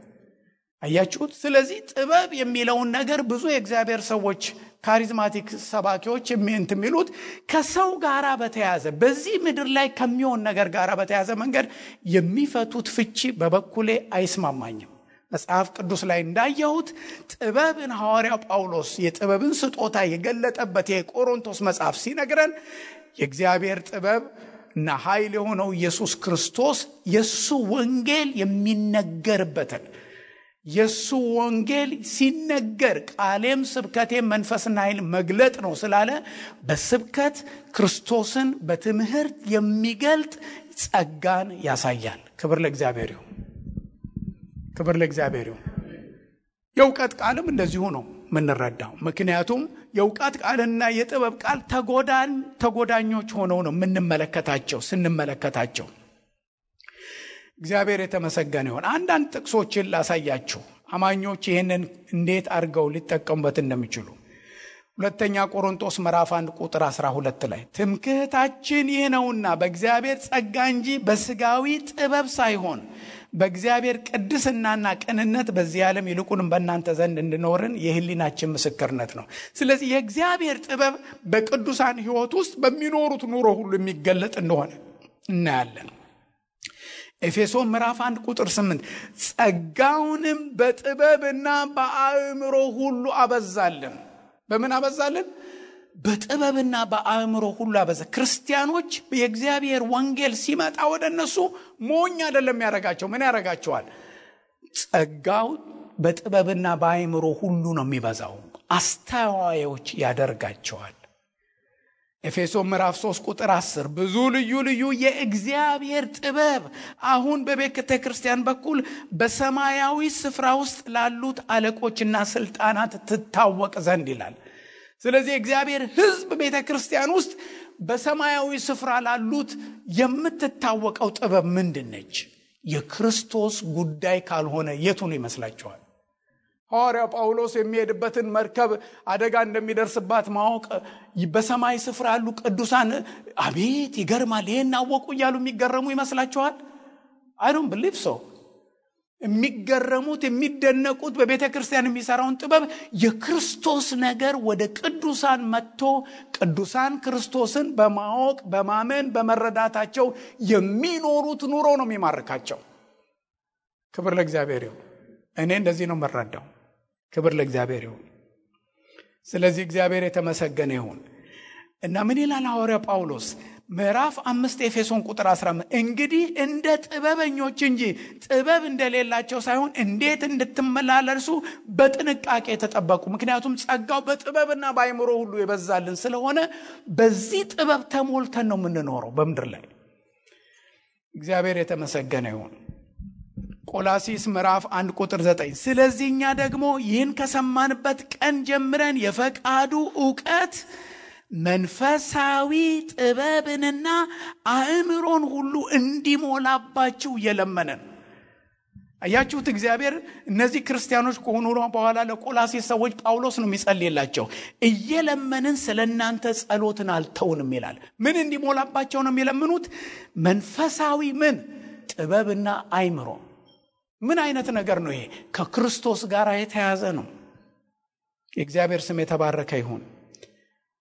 አያችሁት? ስለዚህ ጥበብ የሚለውን ነገር ብዙ የእግዚአብሔር ሰዎች ካሪዝማቲክ ሰባኪዎች የሚሉት ከሰው ጋራ በተያዘ በዚህ ምድር ላይ ከሚሆን ነገር ጋራ በተያዘ መንገድ የሚፈቱት ፍቺ በበኩሌ አይስማማኝም። መጽሐፍ ቅዱስ ላይ እንዳየሁት ጥበብን ሐዋርያው ጳውሎስ የጥበብን ስጦታ የገለጠበት የቆሮንቶስ መጽሐፍ ሲነግረን የእግዚአብሔር ጥበብ እና ኃይል የሆነው ኢየሱስ ክርስቶስ የሱ ወንጌል የሚነገርበትን የሱ ወንጌል ሲነገር ቃሌም ስብከቴም መንፈስና ኃይል መግለጥ ነው ስላለ በስብከት ክርስቶስን በትምህርት የሚገልጥ ጸጋን ያሳያል። ክብር ለእግዚአብሔር ይሁን። ክብር ለእግዚአብሔር ይሁን። የእውቀት ቃልም እንደዚሁ ነው ምንረዳው። ምክንያቱም የእውቀት ቃልና የጥበብ ቃል ተጎዳኞች ሆነው ነው ስንመለከታቸው። እግዚአብሔር የተመሰገነ ይሁን። አንዳንድ ጥቅሶችን ላሳያችሁ አማኞች ይህንን እንዴት አድርገው ሊጠቀሙበት እንደሚችሉ። ሁለተኛ ቆሮንቶስ ምዕራፍ 1 ቁጥር 12 ላይ ትምክህታችን ይህ ነውና በእግዚአብሔር ጸጋ እንጂ በስጋዊ ጥበብ ሳይሆን በእግዚአብሔር ቅድስናና ቅንነት በዚህ ዓለም ይልቁንም በእናንተ ዘንድ እንድኖርን የህሊናችን ምስክርነት ነው። ስለዚህ የእግዚአብሔር ጥበብ በቅዱሳን ሕይወት ውስጥ በሚኖሩት ኑሮ ሁሉ የሚገለጥ እንደሆነ እናያለን። ኤፌሶን ምዕራፍ 1 ቁጥር 8 ጸጋውንም በጥበብና በአእምሮ ሁሉ አበዛልን። በምን አበዛልን? በጥበብና በአእምሮ ሁሉ አበዛ። ክርስቲያኖች የእግዚአብሔር ወንጌል ሲመጣ ወደ እነሱ ሞኝ አይደለም ያረጋቸው። ምን ያረጋቸዋል? ጸጋው በጥበብና በአእምሮ ሁሉ ነው የሚበዛው። አስተዋዮች ያደርጋቸዋል። ኤፌሶን ምዕራፍ 3 ቁጥር 10 ብዙ ልዩ ልዩ የእግዚአብሔር ጥበብ አሁን በቤተ ክርስቲያን በኩል በሰማያዊ ስፍራ ውስጥ ላሉት አለቆችና ስልጣናት ትታወቅ ዘንድ ይላል። ስለዚህ እግዚአብሔር ሕዝብ ቤተ ክርስቲያን ውስጥ በሰማያዊ ስፍራ ላሉት የምትታወቀው ጥበብ ምንድነች? የክርስቶስ ጉዳይ ካልሆነ የቱን ይመስላችኋል? ሐዋርያው ጳውሎስ የሚሄድበትን መርከብ አደጋ እንደሚደርስባት ማወቅ በሰማይ ስፍራ ያሉ ቅዱሳን አቤት ይገርማል ይሄን አወቁ እያሉ የሚገረሙ ይመስላችኋል? I don't believe so። የሚገረሙት የሚደነቁት በቤተ ክርስቲያን የሚሰራውን ጥበብ የክርስቶስ ነገር ወደ ቅዱሳን መጥቶ ቅዱሳን ክርስቶስን በማወቅ በማመን በመረዳታቸው የሚኖሩት ኑሮ ነው የሚማርካቸው። ክብር ለእግዚአብሔር ይሁን። እኔ እንደዚህ ነው መረዳው። ክብር ለእግዚአብሔር ይሁን። ስለዚህ እግዚአብሔር የተመሰገነ ይሁን። እና ምን ይላል ሐዋርያው ጳውሎስ ምዕራፍ 5 ኤፌሶን ቁጥር 15 እንግዲህ እንደ ጥበበኞች እንጂ ጥበብ እንደሌላቸው ሳይሆን እንዴት እንድትመላለሱ በጥንቃቄ ተጠበቁ። ምክንያቱም ጸጋው በጥበብና በአእምሮ ሁሉ የበዛልን ስለሆነ በዚህ ጥበብ ተሞልተን ነው የምንኖረው በምድር ላይ። እግዚአብሔር የተመሰገነ ይሁን። ቆላሲስ ምዕራፍ 1 ቁጥር 9 ስለዚህ እኛ ደግሞ ይህን ከሰማንበት ቀን ጀምረን የፈቃዱ ዕውቀት መንፈሳዊ ጥበብንና አእምሮን ሁሉ እንዲሞላባችሁ እየለመነን። አያችሁት? እግዚአብሔር እነዚህ ክርስቲያኖች ከሆኑ በኋላ ለቆላሲስ ሰዎች ጳውሎስ ነው የሚጸልይላቸው። እየለመንን ስለናንተ ጸሎትን አልተውንም ይላል። ምን እንዲሞላባቸው ነው የሚለምኑት? መንፈሳዊ ምን? ጥበብና አእምሮ። ምን አይነት ነገር ነው ይሄ? ከክርስቶስ ጋር የተያዘ ነው። የእግዚአብሔር ስም የተባረከ ይሁን።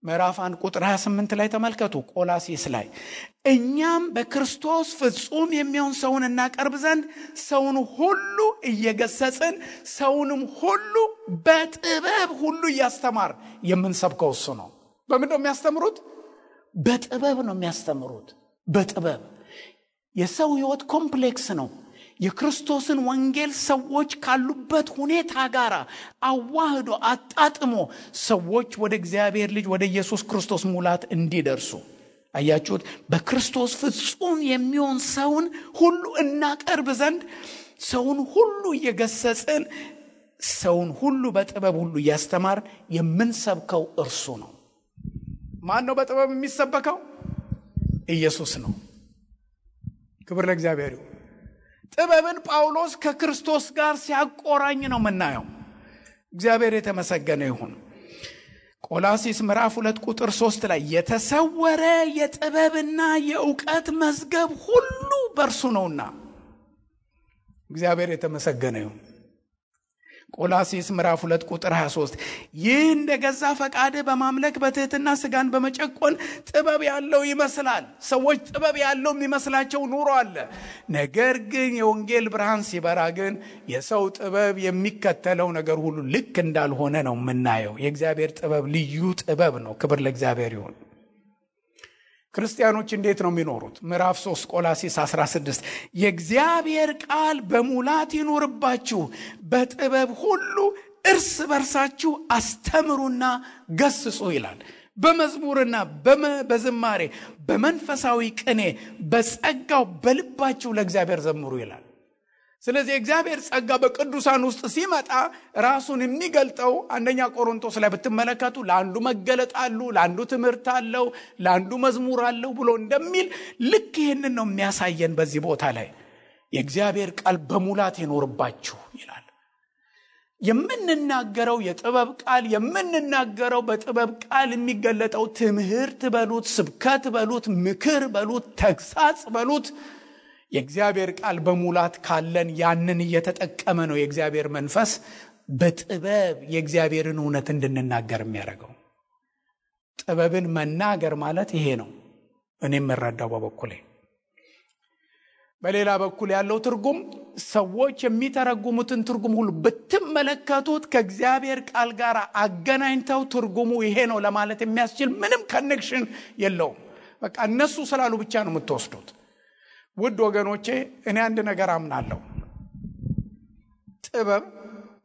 ምዕራፍ 1 ቁጥር 28 ላይ ተመልከቱ። ቆላሲስ ላይ እኛም በክርስቶስ ፍጹም የሚሆን ሰውን እናቀርብ ዘንድ ሰውን ሁሉ እየገሰጽን ሰውንም ሁሉ በጥበብ ሁሉ እያስተማር የምንሰብከው እሱ ነው። በምንድን ነው የሚያስተምሩት? በጥበብ ነው የሚያስተምሩት። በጥበብ የሰው ሕይወት ኮምፕሌክስ ነው። የክርስቶስን ወንጌል ሰዎች ካሉበት ሁኔታ ጋር አዋህዶ አጣጥሞ ሰዎች ወደ እግዚአብሔር ልጅ ወደ ኢየሱስ ክርስቶስ ሙላት እንዲደርሱ። አያችሁት? በክርስቶስ ፍጹም የሚሆን ሰውን ሁሉ እናቀርብ ዘንድ ሰውን ሁሉ እየገሰጽን ሰውን ሁሉ በጥበብ ሁሉ እያስተማር የምንሰብከው እርሱ ነው። ማን ነው በጥበብ የሚሰበከው? ኢየሱስ ነው። ክብር ለእግዚአብሔር ይሁን። ጥበብን ጳውሎስ ከክርስቶስ ጋር ሲያቆራኝ ነው የምናየው። እግዚአብሔር የተመሰገነ ይሁን። ቆላስይስ ምዕራፍ 2 ቁጥር 3 ላይ የተሰወረ የጥበብና የእውቀት መዝገብ ሁሉ በእርሱ ነውና እግዚአብሔር የተመሰገነ ይሁን። ቆላስይስ ምዕራፍ 2 ቁጥር 23 ይህ እንደገዛ ፈቃድ በማምለክ በትህትና ስጋን በመጨቆን ጥበብ ያለው ይመስላል። ሰዎች ጥበብ ያለው የሚመስላቸው ኑሮ አለ። ነገር ግን የወንጌል ብርሃን ሲበራ ግን የሰው ጥበብ የሚከተለው ነገር ሁሉ ልክ እንዳልሆነ ነው የምናየው። የእግዚአብሔር ጥበብ ልዩ ጥበብ ነው። ክብር ለእግዚአብሔር ይሁን። ክርስቲያኖች እንዴት ነው የሚኖሩት? ምዕራፍ 3 ቆላስይስ 16 የእግዚአብሔር ቃል በሙላት ይኖርባችሁ፣ በጥበብ ሁሉ እርስ በርሳችሁ አስተምሩና ገስጹ ይላል። በመዝሙርና በዝማሬ በመንፈሳዊ ቅኔ በጸጋው በልባችሁ ለእግዚአብሔር ዘምሩ ይላል። ስለዚህ እግዚአብሔር ጸጋ በቅዱሳን ውስጥ ሲመጣ ራሱን የሚገልጠው አንደኛ ቆሮንቶስ ላይ ብትመለከቱ ለአንዱ መገለጥ አለው፣ ለአንዱ ትምህርት አለው፣ ለአንዱ መዝሙር አለው ብሎ እንደሚል ልክ ይህንን ነው የሚያሳየን። በዚህ ቦታ ላይ የእግዚአብሔር ቃል በሙላት ይኖርባችሁ ይላል። የምንናገረው የጥበብ ቃል የምንናገረው በጥበብ ቃል የሚገለጠው ትምህርት በሉት፣ ስብከት በሉት፣ ምክር በሉት፣ ተግሳጽ በሉት የእግዚአብሔር ቃል በሙላት ካለን ያንን እየተጠቀመ ነው የእግዚአብሔር መንፈስ በጥበብ የእግዚአብሔርን እውነት እንድንናገር የሚያደርገው። ጥበብን መናገር ማለት ይሄ ነው እኔ የምረዳው በበኩሌ። በሌላ በኩል ያለው ትርጉም ሰዎች የሚተረጉሙትን ትርጉም ሁሉ ብትመለከቱት ከእግዚአብሔር ቃል ጋር አገናኝተው ትርጉሙ ይሄ ነው ለማለት የሚያስችል ምንም ኮኔክሽን የለውም። በቃ እነሱ ስላሉ ብቻ ነው የምትወስዱት። ውድ ወገኖቼ እኔ አንድ ነገር አምናለሁ። ጥበብ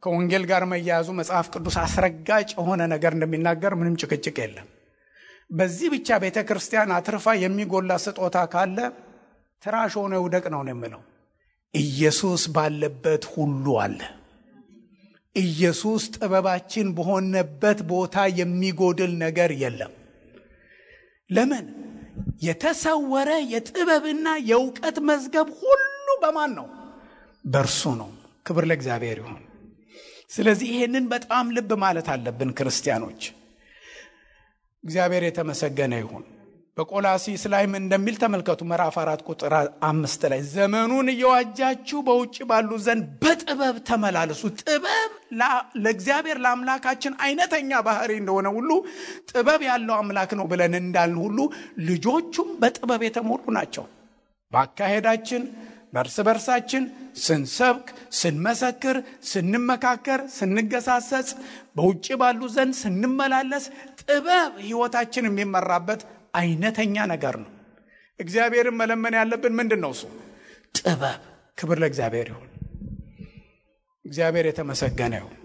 ከወንጌል ጋር መያያዙ መጽሐፍ ቅዱስ አስረጋጭ የሆነ ነገር እንደሚናገር ምንም ጭቅጭቅ የለም። በዚህ ብቻ ቤተክርስቲያን አትርፋ የሚጎላ ስጦታ ካለ ትራሽ ሆነ ውደቅ ነው የምለው። ኢየሱስ ባለበት ሁሉ አለ። ኢየሱስ ጥበባችን በሆነበት ቦታ የሚጎድል ነገር የለም። ለምን? የተሰወረ የጥበብና የእውቀት መዝገብ ሁሉ በማን ነው? በእርሱ ነው። ክብር ለእግዚአብሔር ይሁን። ስለዚህ ይሄንን በጣም ልብ ማለት አለብን ክርስቲያኖች። እግዚአብሔር የተመሰገነ ይሁን። በቆላስይስ ላይም እንደሚል ተመልከቱ። ምዕራፍ 4 ቁጥር 5 ላይ ዘመኑን እየዋጃችሁ በውጭ ባሉ ዘንድ በጥበብ ተመላለሱ። ጥበብ ለእግዚአብሔር ለአምላካችን አይነተኛ ባህሪ እንደሆነ ሁሉ ጥበብ ያለው አምላክ ነው ብለን እንዳልን ሁሉ ልጆቹም በጥበብ የተሞሉ ናቸው። በአካሄዳችን፣ በእርስ በርሳችን ስንሰብክ፣ ስንመሰክር፣ ስንመካከር፣ ስንገሳሰጽ፣ በውጭ ባሉ ዘንድ ስንመላለስ ጥበብ ሕይወታችን የሚመራበት አይነተኛ ነገር ነው። እግዚአብሔርን መለመን ያለብን ምንድነው? እሱ ጥበብ። ክብር ለእግዚአብሔር ይሁን። እግዚአብሔር የተመሰገነ ይሁን።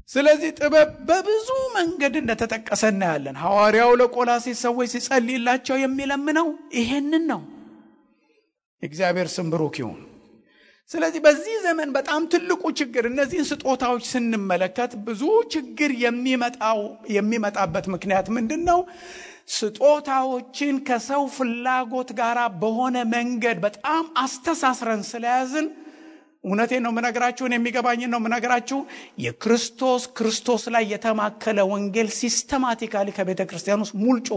ስለዚህ ጥበብ በብዙ መንገድ እንደተጠቀሰ እናያለን። ሐዋርያው ለቆላስይስ ሰዎች ሲጸልይላቸው የሚለምነው ይሄንን ነው። እግዚአብሔር ስም ብሩክ ይሁን። ስለዚህ በዚህ ዘመን በጣም ትልቁ ችግር እነዚህን ስጦታዎች ስንመለከት ብዙ ችግር የሚመጣበት ምክንያት ምንድነው? ስጦታዎችን ከሰው ፍላጎት ጋር በሆነ መንገድ በጣም አስተሳስረን ስለያዝን፣ እውነቴን ነው የምነግራችሁ፣ የሚገባኝን ነው የምነግራችሁ። ክርስቶስ ላይ የተማከለ ወንጌል ሲስተማቲካሊ ከቤተ ክርስቲያን ውስጥ ሙልጮ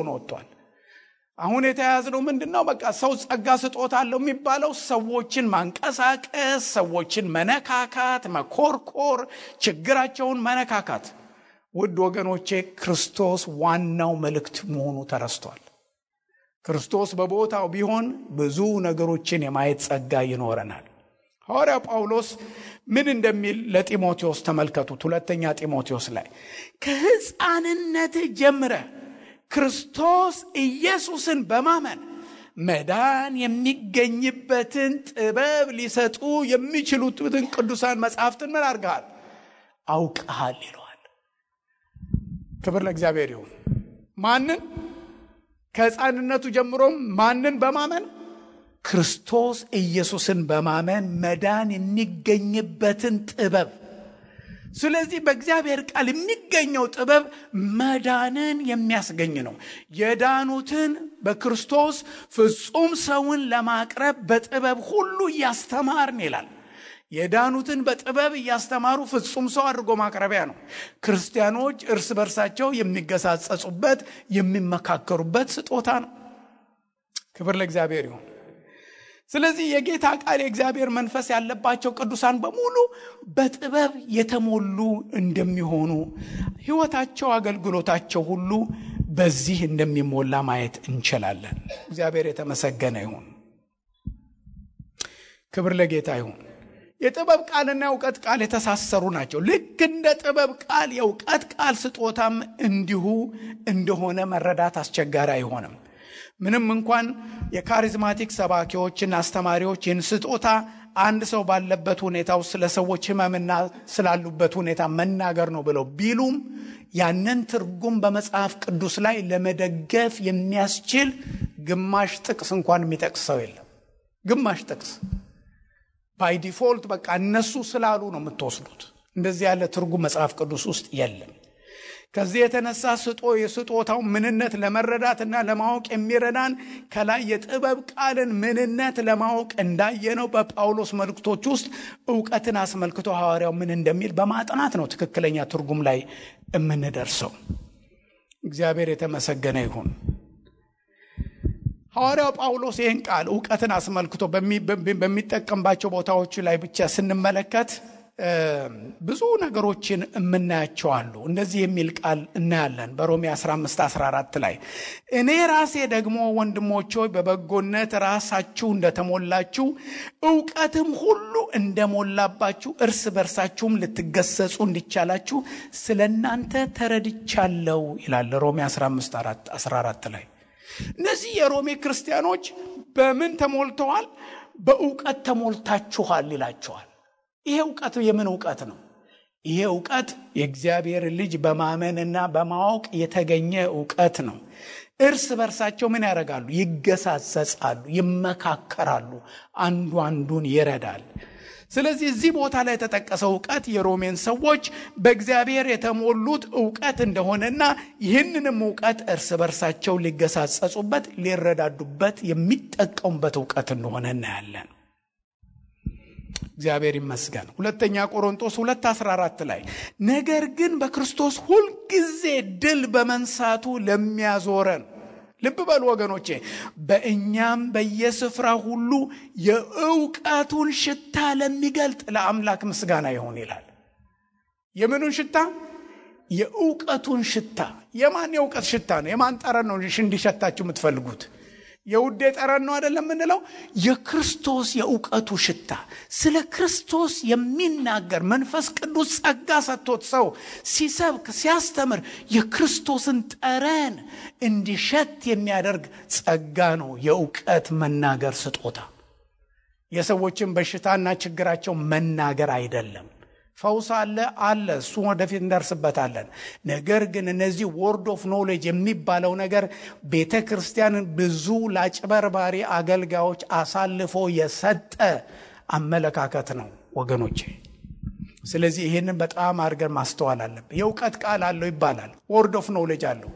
ነው ወጥቷል። አሁን የተያያዝነው ምንድነው? በቃ ሰው ጸጋ ስጦታ አለው የሚባለው ሰዎችን ማንቀሳቀስ፣ ሰዎችን መነካካት፣ መኮርኮር፣ ችግራቸውን መነካካት። ውድ ወገኖቼ ክርስቶስ ዋናው መልእክት መሆኑ ተረስቷል። ክርስቶስ በቦታው ቢሆን ብዙ ነገሮችን የማየት ጸጋ ይኖረናል። ሐዋርያው ጳውሎስ ምን እንደሚል ለጢሞቴዎስ ተመልከቱት። ሁለተኛ ጢሞቴዎስ ላይ ከሕፃንነት ጀምረህ ክርስቶስ ኢየሱስን በማመን መዳን የሚገኝበትን ጥበብ ሊሰጡ የሚችሉትን ቅዱሳን መጻሕፍትን ምን አድርገሃል? አውቀሃል ይለዋል። ክብር ለእግዚአብሔር ይሁን። ማንን? ከሕፃንነቱ ጀምሮም ማንን በማመን? ክርስቶስ ኢየሱስን በማመን መዳን የሚገኝበትን ጥበብ። ስለዚህ በእግዚአብሔር ቃል የሚገኘው ጥበብ መዳንን የሚያስገኝ ነው። የዳኑትን በክርስቶስ ፍጹም ሰውን ለማቅረብ በጥበብ ሁሉ እያስተማርን ይላል። የዳኑትን በጥበብ እያስተማሩ ፍጹም ሰው አድርጎ ማቅረቢያ ነው። ክርስቲያኖች እርስ በርሳቸው የሚገሳጸጹበት የሚመካከሩበት ስጦታ ነው። ክብር ለእግዚአብሔር ይሁን። ስለዚህ የጌታ ቃል የእግዚአብሔር መንፈስ ያለባቸው ቅዱሳን በሙሉ በጥበብ የተሞሉ እንደሚሆኑ ሕይወታቸው፣ አገልግሎታቸው ሁሉ በዚህ እንደሚሞላ ማየት እንችላለን። እግዚአብሔር የተመሰገነ ይሁን። ክብር ለጌታ ይሁን። የጥበብ ቃልና የእውቀት ቃል የተሳሰሩ ናቸው። ልክ እንደ ጥበብ ቃል የእውቀት ቃል ስጦታም እንዲሁ እንደሆነ መረዳት አስቸጋሪ አይሆንም። ምንም እንኳን የካሪዝማቲክ ሰባኪዎችና አስተማሪዎች ይህን ስጦታ አንድ ሰው ባለበት ሁኔታ ውስጥ ስለ ሰዎች ሕመምና ስላሉበት ሁኔታ መናገር ነው ብለው ቢሉም ያንን ትርጉም በመጽሐፍ ቅዱስ ላይ ለመደገፍ የሚያስችል ግማሽ ጥቅስ እንኳን የሚጠቅስ ሰው የለም። ግማሽ ጥቅስ ባይ ዲፎልት በቃ እነሱ ስላሉ ነው የምትወስዱት። እንደዚህ ያለ ትርጉም መጽሐፍ ቅዱስ ውስጥ የለም። ከዚህ የተነሳ የስጦታው ምንነት ለመረዳትና ለማወቅ የሚረዳን ከላይ የጥበብ ቃልን ምንነት ለማወቅ እንዳየነው በጳውሎስ መልእክቶች ውስጥ ዕውቀትን አስመልክቶ ሐዋርያው ምን እንደሚል በማጥናት ነው ትክክለኛ ትርጉም ላይ የምንደርሰው። እግዚአብሔር የተመሰገነ ይሁን። ሐዋርያው ጳውሎስ ይህን ቃል ዕውቀትን አስመልክቶ በሚጠቀምባቸው ቦታዎች ላይ ብቻ ስንመለከት ብዙ ነገሮችን የምናያቸው አሉ። እንደዚህ የሚል ቃል እናያለን በሮሜ 15:14 ላይ እኔ ራሴ ደግሞ ወንድሞች ሆይ በበጎነት ራሳችሁ እንደተሞላችሁ ዕውቀትም ሁሉ እንደሞላባችሁ እርስ በርሳችሁም ልትገሰጹ እንዲቻላችሁ ስለናንተ ተረድቻለሁ ይላል ሮሜ 15:14 ላይ። እነዚህ የሮሜ ክርስቲያኖች በምን ተሞልተዋል? በዕውቀት ተሞልታችኋል ይላቸዋል። ይሄ ዕውቀት የምን ዕውቀት ነው? ይሄ ዕውቀት የእግዚአብሔር ልጅ በማመንና በማወቅ የተገኘ ዕውቀት ነው። እርስ በርሳቸው ምን ያደርጋሉ? ይገሳጸጻሉ፣ ይመካከራሉ፣ አንዱ አንዱን ይረዳል። ስለዚህ እዚህ ቦታ ላይ የተጠቀሰው ዕውቀት የሮሜን ሰዎች በእግዚአብሔር የተሞሉት ዕውቀት እንደሆነና ይህንንም ዕውቀት እርስ በርሳቸው ሊገሳጸጹበት፣ ሊረዳዱበት የሚጠቀሙበት ዕውቀት እንደሆነ እናያለን። እግዚአብሔር ይመስገን። ሁለተኛ ቆሮንቶስ 2:14 ላይ ነገር ግን በክርስቶስ ሁልጊዜ ድል በመንሳቱ ለሚያዞረን፣ ልብ በሉ ወገኖቼ፣ በእኛም በየስፍራ ሁሉ የዕውቀቱን ሽታ ለሚገልጥ ለአምላክ ምስጋና ይሁን ይላል። የምኑን ሽታ? የዕውቀቱን ሽታ። የማን የዕውቀት ሽታ ነው? የማን ጠረን ነው እንዲሸታችሁ የምትፈልጉት? የውዴ ጠረን ነው አይደለም የምንለው? የክርስቶስ የዕውቀቱ ሽታ። ስለ ክርስቶስ የሚናገር መንፈስ ቅዱስ ጸጋ ሰጥቶት ሰው ሲሰብክ ሲያስተምር የክርስቶስን ጠረን እንዲሸት የሚያደርግ ጸጋ ነው የዕውቀት መናገር ስጦታ። የሰዎችን በሽታና ችግራቸው መናገር አይደለም። ፈውስ አለ፣ እሱ ወደፊት እንደርስበታለን። ነገር ግን እነዚህ ወርድ ኦፍ ኖሌጅ የሚባለው ነገር ቤተ ክርስቲያንን ብዙ ለአጭበርባሪ አገልጋዮች አሳልፎ የሰጠ አመለካከት ነው ወገኖቼ። ስለዚህ ይህንን በጣም አድርገን ማስተዋል አለብን። የዕውቀት ቃል አለው ይባላል፣ ወርድ ኦፍ ኖሌጅ አለው።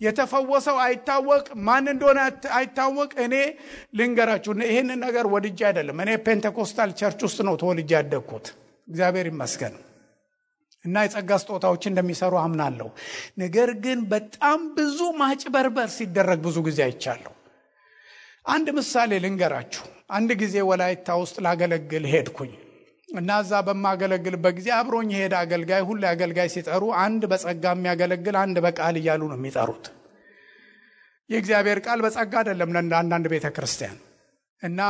የተፈወሰው አይታወቅ፣ ማን እንደሆነ አይታወቅ። እኔ ልንገራችሁ፣ ይህንን ነገር ወድጄ አይደለም። እኔ ፔንቴኮስታል ቸርች ውስጥ ነው ተወልጄ ያደግኩት። እግዚአብሔር ይመስገን እና የጸጋ ስጦታዎች እንደሚሰሩ አምናለሁ። ነገር ግን በጣም ብዙ ማጭበርበር ሲደረግ ብዙ ጊዜ አይቻለሁ። አንድ ምሳሌ ልንገራችሁ። አንድ ጊዜ ወላይታ ውስጥ ላገለግል ሄድኩኝ እና እዛ በማገለግልበት ጊዜ አብሮኝ ሄደ አገልጋይ። ሁሉ አገልጋይ ሲጠሩ አንድ በጸጋ የሚያገለግል፣ አንድ በቃል እያሉ ነው የሚጠሩት። የእግዚአብሔር ቃል በጸጋ አይደለም ለአንዳንድ ቤተ ክርስቲያን እና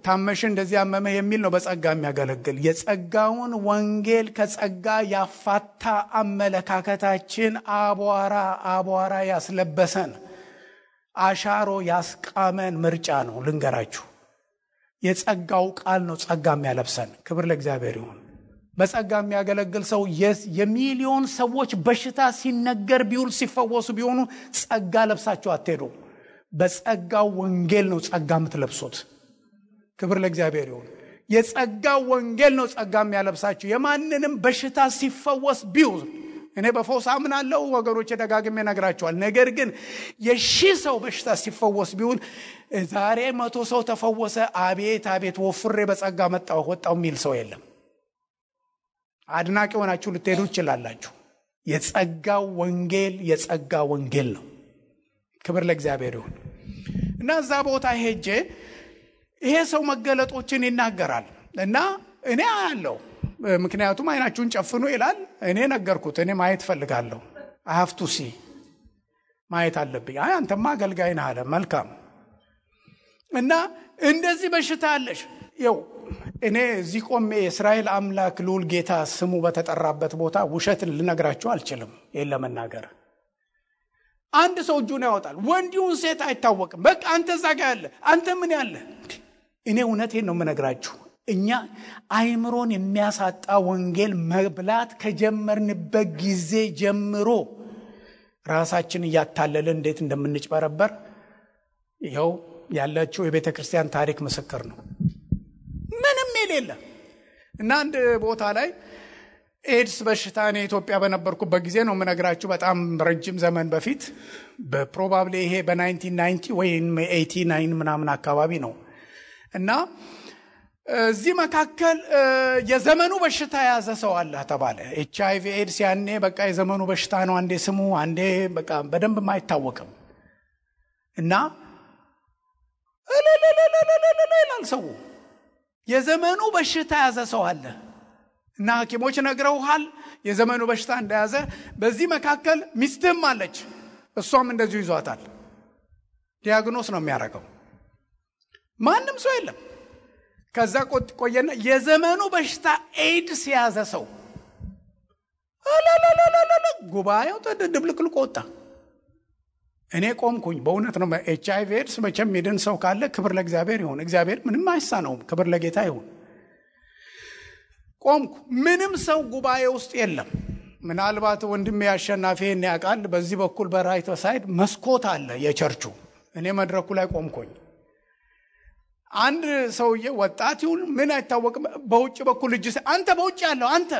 ታመሽ እንደዚህ ያመመ የሚል ነው በጸጋ የሚያገለግል። የጸጋውን ወንጌል ከጸጋ ያፋታ አመለካከታችን አቧራ ያስለበሰን፣ አሻሮ ያስቃመን ምርጫ ነው። ልንገራችሁ፣ የጸጋው ቃል ነው ጸጋ የሚያለብሰን። ክብር ለእግዚአብሔር ይሁን። በጸጋ የሚያገለግል ሰው የሚሊዮን ሰዎች በሽታ ሲነገር ቢውል ሲፈወሱ ቢሆኑ ጸጋ ለብሳችሁ አትሄዱ። በጸጋው ወንጌል ነው ጸጋ የምትለብሱት። ክብር ለእግዚአብሔር ይሁን። የጸጋው ወንጌል ነው ጸጋ የሚያለብሳችሁ። የማንንም በሽታ ሲፈወስ ቢውል እኔ በፈውስ አምናለሁ ወገኖቼ፣ ደጋግሜ ነግራቸዋል። ነገር ግን የሺህ ሰው በሽታ ሲፈወስ ቢሆን ዛሬ 100 ሰው ተፈወሰ፣ አቤት አቤት ወፍሬ በጸጋ ወጣው የሚል ሰው የለም። አድናቂ ሆናችሁ ልትሄዱ ይችላላችሁ። የጸጋው ወንጌል ነው። ክብር ለእግዚአብሔር ይሁን። እና እዛ ቦታ ሄጄ ይሄ ሰው መገለጦችን ይናገራል እና እኔ አያለሁ። ምክንያቱም አይናችሁን ጨፍኑ ይላል። እኔ ነገርኩት፣ እኔ ማየት ፈልጋለሁ። I have to see ማየት አለብኝ። አንተማ አገልጋይ ነህ አለ። መልካም። እና እንደዚህ በሽታ አለሽ። እኔ እዚህ ቆሜ የእስራኤል አምላክ ልዑል ጌታ ስሙ በተጠራበት ቦታ ውሸትን ልነግራችሁ አልችልም። ይሄን ለመናገር አንድ ሰው እጁን ያወጣል፣ ወንዲውን ሴት አይታወቅም። በቃ አንተ እዛ ጋር ያለ አንተ ምን ያለ። እኔ እውነቴን ነው የምነግራችሁ። እኛ አይምሮን የሚያሳጣ ወንጌል መብላት ከጀመርንበት ጊዜ ጀምሮ ራሳችን እያታለልን እንዴት እንደምንጭበረበር ይኸው ያለችው የቤተ ክርስቲያን ታሪክ ምስክር ነው። ምንም የሌለ እና አንድ ቦታ ላይ ኤድስ በሽታ እኔ ኢትዮጵያ በነበርኩበት ጊዜ ነው የምነግራችሁ። በጣም ረጅም ዘመን በፊት በፕሮባብሊ ይሄ በ1990 ወይም 89 ምናምን አካባቢ ነው። እና እዚህ መካከል የዘመኑ በሽታ ያዘ ሰው አለ ተባለ። HIV ኤድስ ያኔ በቃ የዘመኑ በሽታ ነው። አንዴ ስሙ አንዴ በቃ በደንብ ማይታወቅም። እና ይላል ሰው የዘመኑ በሽታ ያዘ ሰው አለ እና ሐኪሞች ነግረውሃል የዘመኑ በሽታ እንደያዘ። በዚህ መካከል ሚስትም አለች፣ እሷም እንደዚሁ ይዟታል። ዲያግኖስ ነው የሚያደርገው። ማንም ሰው የለም። ከዛ ቆየና የዘመኑ በሽታ ኤድስ ያዘ ሰው ጉባኤው ተደብልቅልቆ ወጣ። እኔ ቆምኩኝ። በእውነት ነው HIV ኤድስ መቼም ይድን ሰው ካለ ክብር ለእግዚአብሔር ይሁን። እግዚአብሔር ምንም አይሳነውም። ክብር ለጌታ ይሁን። ቆምኩ። ምንም ሰው ጉባኤ ውስጥ የለም። ምናልባት ወንድሜ አሸናፊን ያውቃል። በዚህ በኩል በራይት ሳይድ መስኮት አለ የቸርቹ። እኔ መድረኩ ላይ ቆምኩኝ። አንድ ሰውዬ ወጣት ይሁን ምን አይታወቅም፣ በውጭ በኩል እጅ አንተ በውጭ ያለው አንተ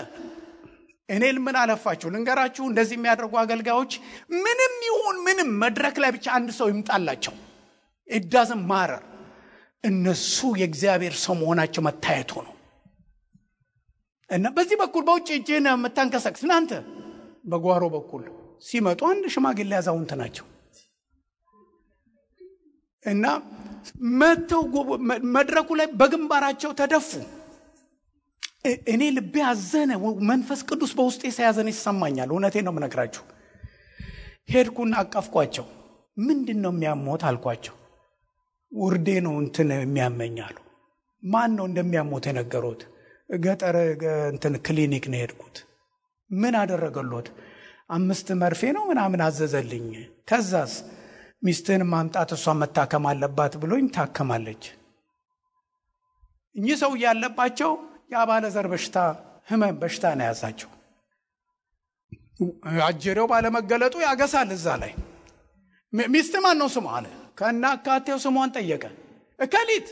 እኔ ምን አለፋችሁ ልንገራችሁ። እንደዚህ የሚያደርጉ አገልጋዮች ምንም ይሁን ምንም መድረክ ላይ ብቻ አንድ ሰው ይምጣላቸው፣ it doesn't matter። እነሱ የእግዚአብሔር ሰው መሆናቸው መታየቱ ነው። እና በዚህ በኩል በውጭ እጅን የምታንቀሳቅስ እናንተ በጓሮ በኩል ሲመጡ አንድ ሽማግሌ አዛውንት ናቸው እና መተው መድረኩ ላይ በግንባራቸው ተደፉ። እኔ ልቤ አዘነ። መንፈስ ቅዱስ በውስጤ ሲያዘን ይሰማኛል። እውነቴን ነው የምነግራችሁ። ሄድኩና አቀፍኳቸው። ምንድነው የሚያሞት አልኳቸው። ውርዴ ነው እንትን የሚያመኛሉ። ማን ነው እንደሚያሞት የነገሩት? ገጠር እንትን ክሊኒክ ነው ሄድኩት። ምን አደረገሎት? 5 መርፌ ነው ምናምን አዘዘልኝ። ከዛስ ሚስትን ማምጣት እሷ መታከም አለባት ብሎኝ ታከማለች። እኚህ ሰው ያለባቸው የአባለ ዘር በሽታ ህመም በሽታ ነው ያዛቸው። አጀሬው ባለመገለጡ ያገሳል። እዛ ላይ ሚስት ማን ነው ስሟ አለ። ከናካቴው ስሟን ጠየቀ። እከሊት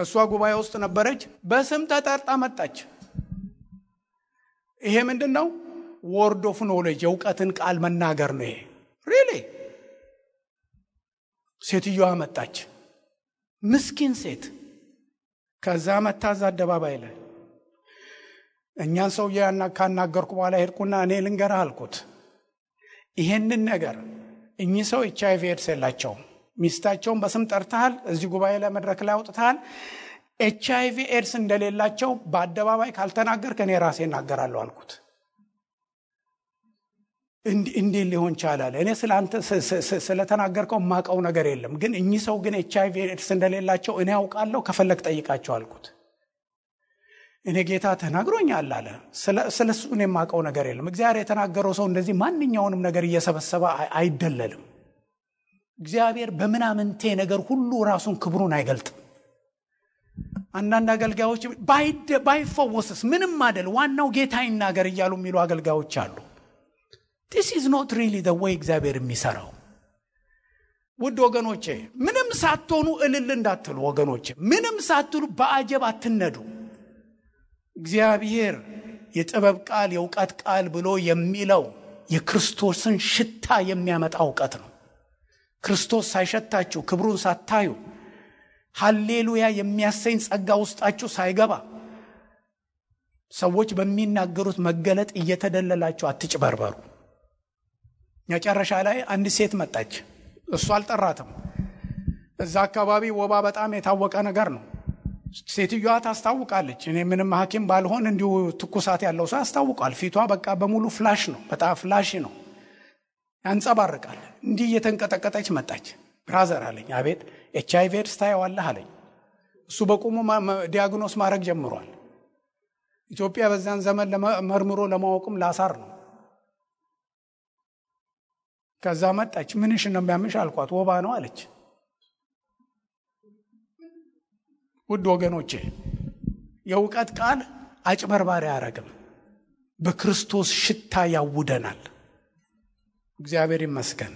እሷ ጉባኤ ውስጥ ነበረች። በስም ተጠርጣ መጣች። ይሄ ምንድነው? ወርድ ኦፍ ኖሌጅ የእውቀትን ቃል መናገር ነው ይሄ ሪሊ። ሴትዮዋ መጣች፣ ምስኪን ሴት። ከዛ መታዛ አደባባይ ላይ እኛን ሰው ካናገርኩ በኋላ ሄድኩና እኔ ልንገርህ አልኩት፣ ይሄንን ነገር እኚህ ሰው HIV ኤድስ የላቸውም። ሚስታቸውን በስም ጠርተሃል፣ እዚህ ጉባኤ ላይ መድረክ ላይ አውጥተሃል። HIV ኤድስ እንደሌላቸው በአደባባይ ካልተናገርክ እኔ ራሴ እናገራለሁ አልኩት። እንዴት ሊሆን ይችላል? እኔ ስላንተ ስለተናገርከው ማቀው ነገር የለም፣ ግን እኚህ ሰው ግን HIV ኤድስ እንደሌላቸው እኔ አውቃለሁ፣ ከፈለክ ጠይቃቸው አልኩት። እኔ ጌታ ተናግሮኛል አለ። ስለሱ እኔ ማቀው ነገር የለም። እግዚአብሔር የተናገረው ሰው እንደዚህ ማንኛውንም ነገር እየሰበሰበ አይደለልም። እግዚአብሔር በምናምንቴ ነገር ሁሉ ራሱን ክብሩን አይገልጥም። አንዳንድ አገልጋዮች ባይፈወስስ ምንም አይደል ዋናው ጌታ ይናገር እያሉ የሚሉ አገልጋዮች አሉ። This is not really the way እግዚአብሔር የሚሰራው። ውድ ወገኖቼ ምንም ሳትሆኑ እልል እንዳትሉ ወገኖቼ፣ ምንም ሳትሉ በአጀብ አትነዱ። እግዚአብሔር የጥበብ ቃል የእውቀት ቃል ብሎ የሚለው የክርስቶስን ሽታ የሚያመጣ እውቀት ነው። ክርስቶስ ሳይሸታችሁ ክብሩን ሳታዩ ሃሌሉያ የሚያሰኝ ጸጋ ውስጣችሁ ሳይገባ ሰዎች በሚናገሩት መገለጥ እየተደለላችሁ አትጭበርበሩ። መጨረሻ ላይ አንድ ሴት መጣች። እሱ አልጠራትም። እዛ አካባቢ ወባ በጣም የታወቀ ነገር ነው። ሴትዮዋ ታስታውቃለች። እኔ ምንም ሐኪም ባልሆን እንዲሁ ትኩሳት ያለው ሰው ያስታውቃል። ፊቷ በቃ በሙሉ ፍላሽ ነው። በጣም ፍላሽ ነው፣ ያንጸባርቃል። እንዲህ እየተንቀጠቀጠች መጣች። ብራዘር አለኝ። አቤት። HIV ኤድስ ታየዋለህ አለኝ። እሱ በቁሙ ዲያግኖስ ማድረግ ጀምሯል። ኢትዮጵያ በዛን ዘመን መርምሮ ለማወቅም ላሳር ነው። ከዛ መጣች። ምንሽ ነው የሚያምሽ አልኳት። ወባ ነው አለች። ውድ ወገኖቼ የእውቀት ቃል አጭበርባሪ አያረግም። በክርስቶስ ሽታ ያውደናል። እግዚአብሔር ይመስገን።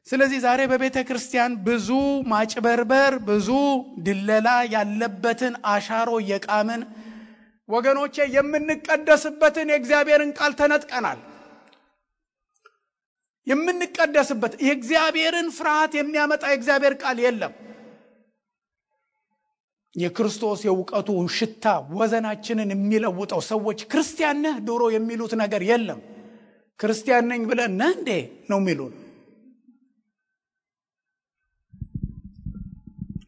ስለዚህ ዛሬ በቤተ ክርስቲያን ብዙ ማጭበርበር፣ ብዙ ድለላ ያለበትን አሻሮ የቃምን ወገኖቼ የምንቀደስበትን የእግዚአብሔርን ቃል ተነጥቀናል። የምንቀደስበት የእግዚአብሔርን ፍርሃት የሚያመጣ የእግዚአብሔር ቃል የለም። የክርስቶስ የእውቀቱ ሽታ ወዘናችንን የሚለውጠው ሰዎች ክርስቲያን ነህ ድሮ የሚሉት ነገር የለም። ክርስቲያን ነኝ ብለን ነህ እንዴ ነው የሚሉን።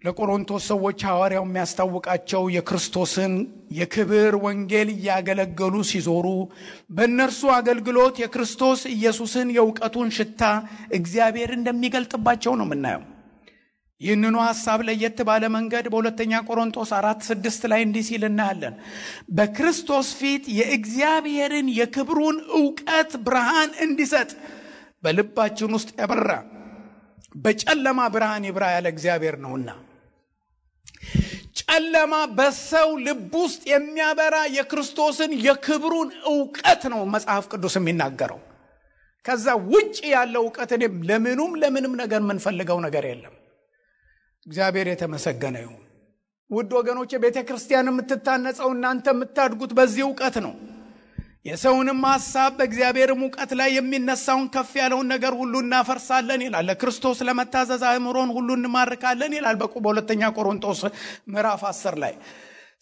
ለቆሮንቶስ ሰዎች ሐዋርያው የሚያስታውቃቸው የክርስቶስን የክብር ወንጌል እያገለገሉ ሲዞሩ በእነርሱ አገልግሎት የክርስቶስ ኢየሱስን የእውቀቱን ሽታ እግዚአብሔር እንደሚገልጥባቸው ነው የምናየው። ይህንኑ ሐሳብ ለየት ባለ መንገድ በሁለተኛ ቆሮንቶስ 4:6 ላይ እንዲህ ሲል እናያለን። በክርስቶስ ፊት የእግዚአብሔርን የክብሩን ዕውቀት ብርሃን እንዲሰጥ በልባችን ውስጥ ያበራ በጨለማ ብርሃን ይብራ ያለ እግዚአብሔር ነውና። ጨለማ በሰው ልብ ውስጥ የሚያበራ የክርስቶስን የክብሩን ዕውቀት ነው መጽሐፍ ቅዱስ የሚናገረው። ከዛ ውጪ ያለው ዕውቀት ለምንም ነገር የምንፈልገው ነገር የለም። እግዚአብሔር የተመሰገነ ይሁን። ውድ ወገኖቼ ቤተክርስቲያን የምትታነጸው እናንተ የምታድጉት በዚህ ዕውቀት ነው። የሰውንም ሐሳብ በእግዚአብሔርም ዕውቀት ላይ የሚነሳውን ከፍ ያለውን ነገር ሁሉ እናፈርሳለን ይላል። ለክርስቶስ ለመታዘዝ አእምሮን ሁሉ እንማርካለን ይላል በሁለተኛ ቆሮንቶስ ምዕራፍ 10 ላይ።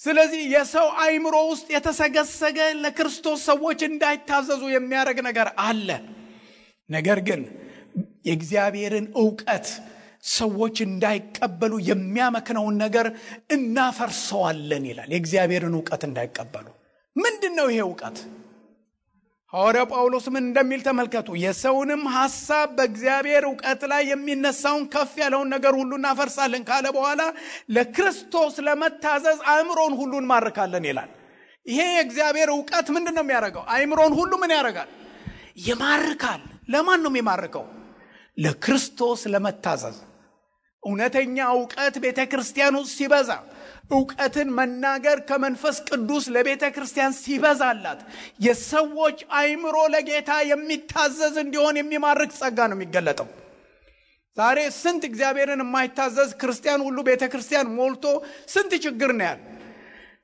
ስለዚህ የሰው አእምሮ ውስጥ የተሰገሰገ ለክርስቶስ ሰዎች እንዳይታዘዙ የሚያደርግ ነገር አለ። ነገር ግን የእግዚአብሔርን ዕውቀት ሰዎች እንዳይቀበሉ የሚያመክነውን ነገር እናፈርሰዋለን ይላል። የእግዚአብሔርን ዕውቀት እንዳይቀበሉ። ምንድነው ይሄ ዕውቀት? ሐዋርያው ጳውሎስ ምን እንደሚል ተመልከቱ። የሰውንም ሐሳብ በእግዚአብሔር ዕውቀት ላይ የሚነሳውን ከፍ ያለውን ነገር ሁሉ እናፈርሳለን ካለ በኋላ ለክርስቶስ ለመታዘዝ አእምሮን ሁሉ እንማርካለን ይላል። ይሄ የእግዚአብሔር ዕውቀት ምንድነው የሚያደርገው? አእምሮን ሁሉ ምን ያደርጋል? ይማርካል። ለማን ነው የሚማርከው? ለክርስቶስ ለመታዘዝ። እውነተኛ ዕውቀት ቤተክርስቲያን ውስጥ ሲበዛ፣ ዕውቀትን መናገር ከመንፈስ ቅዱስ ለቤተክርስቲያን ሲበዛላት የሰዎች አእምሮ ለጌታ የሚታዘዝ እንዲሆን የሚማርክ ጸጋ ነው የሚገለጠው። ዛሬ ስንት እግዚአብሔርን የማይታዘዝ ክርስቲያን ሁሉ ቤተክርስቲያን ሞልቶ ስንት ችግር ነው ያለው።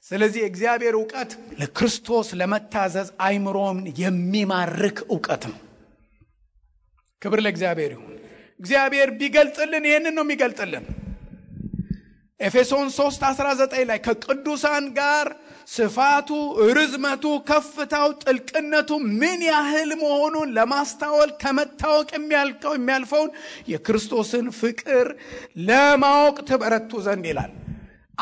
ስለዚህ እግዚአብሔር ዕውቀት ለክርስቶስ ለመታዘዝ አእምሮን የሚማርክ ዕውቀት ነው። ክብር ለእግዚአብሔር ይሁን። እግዚአብሔር ቢገልጥልን ይሄንን ነው የሚገልጥልን። ኤፌሶን 3:19 ላይ ከቅዱሳን ጋር ስፋቱ፣ ርዝመቱ፣ ከፍታው፣ ጥልቅነቱ ምን ያህል መሆኑን ለማስተዋል ከመታወቅ የሚያልፈውን የክርስቶስን ፍቅር ለማወቅ ትበረቱ ዘንድ ይላል።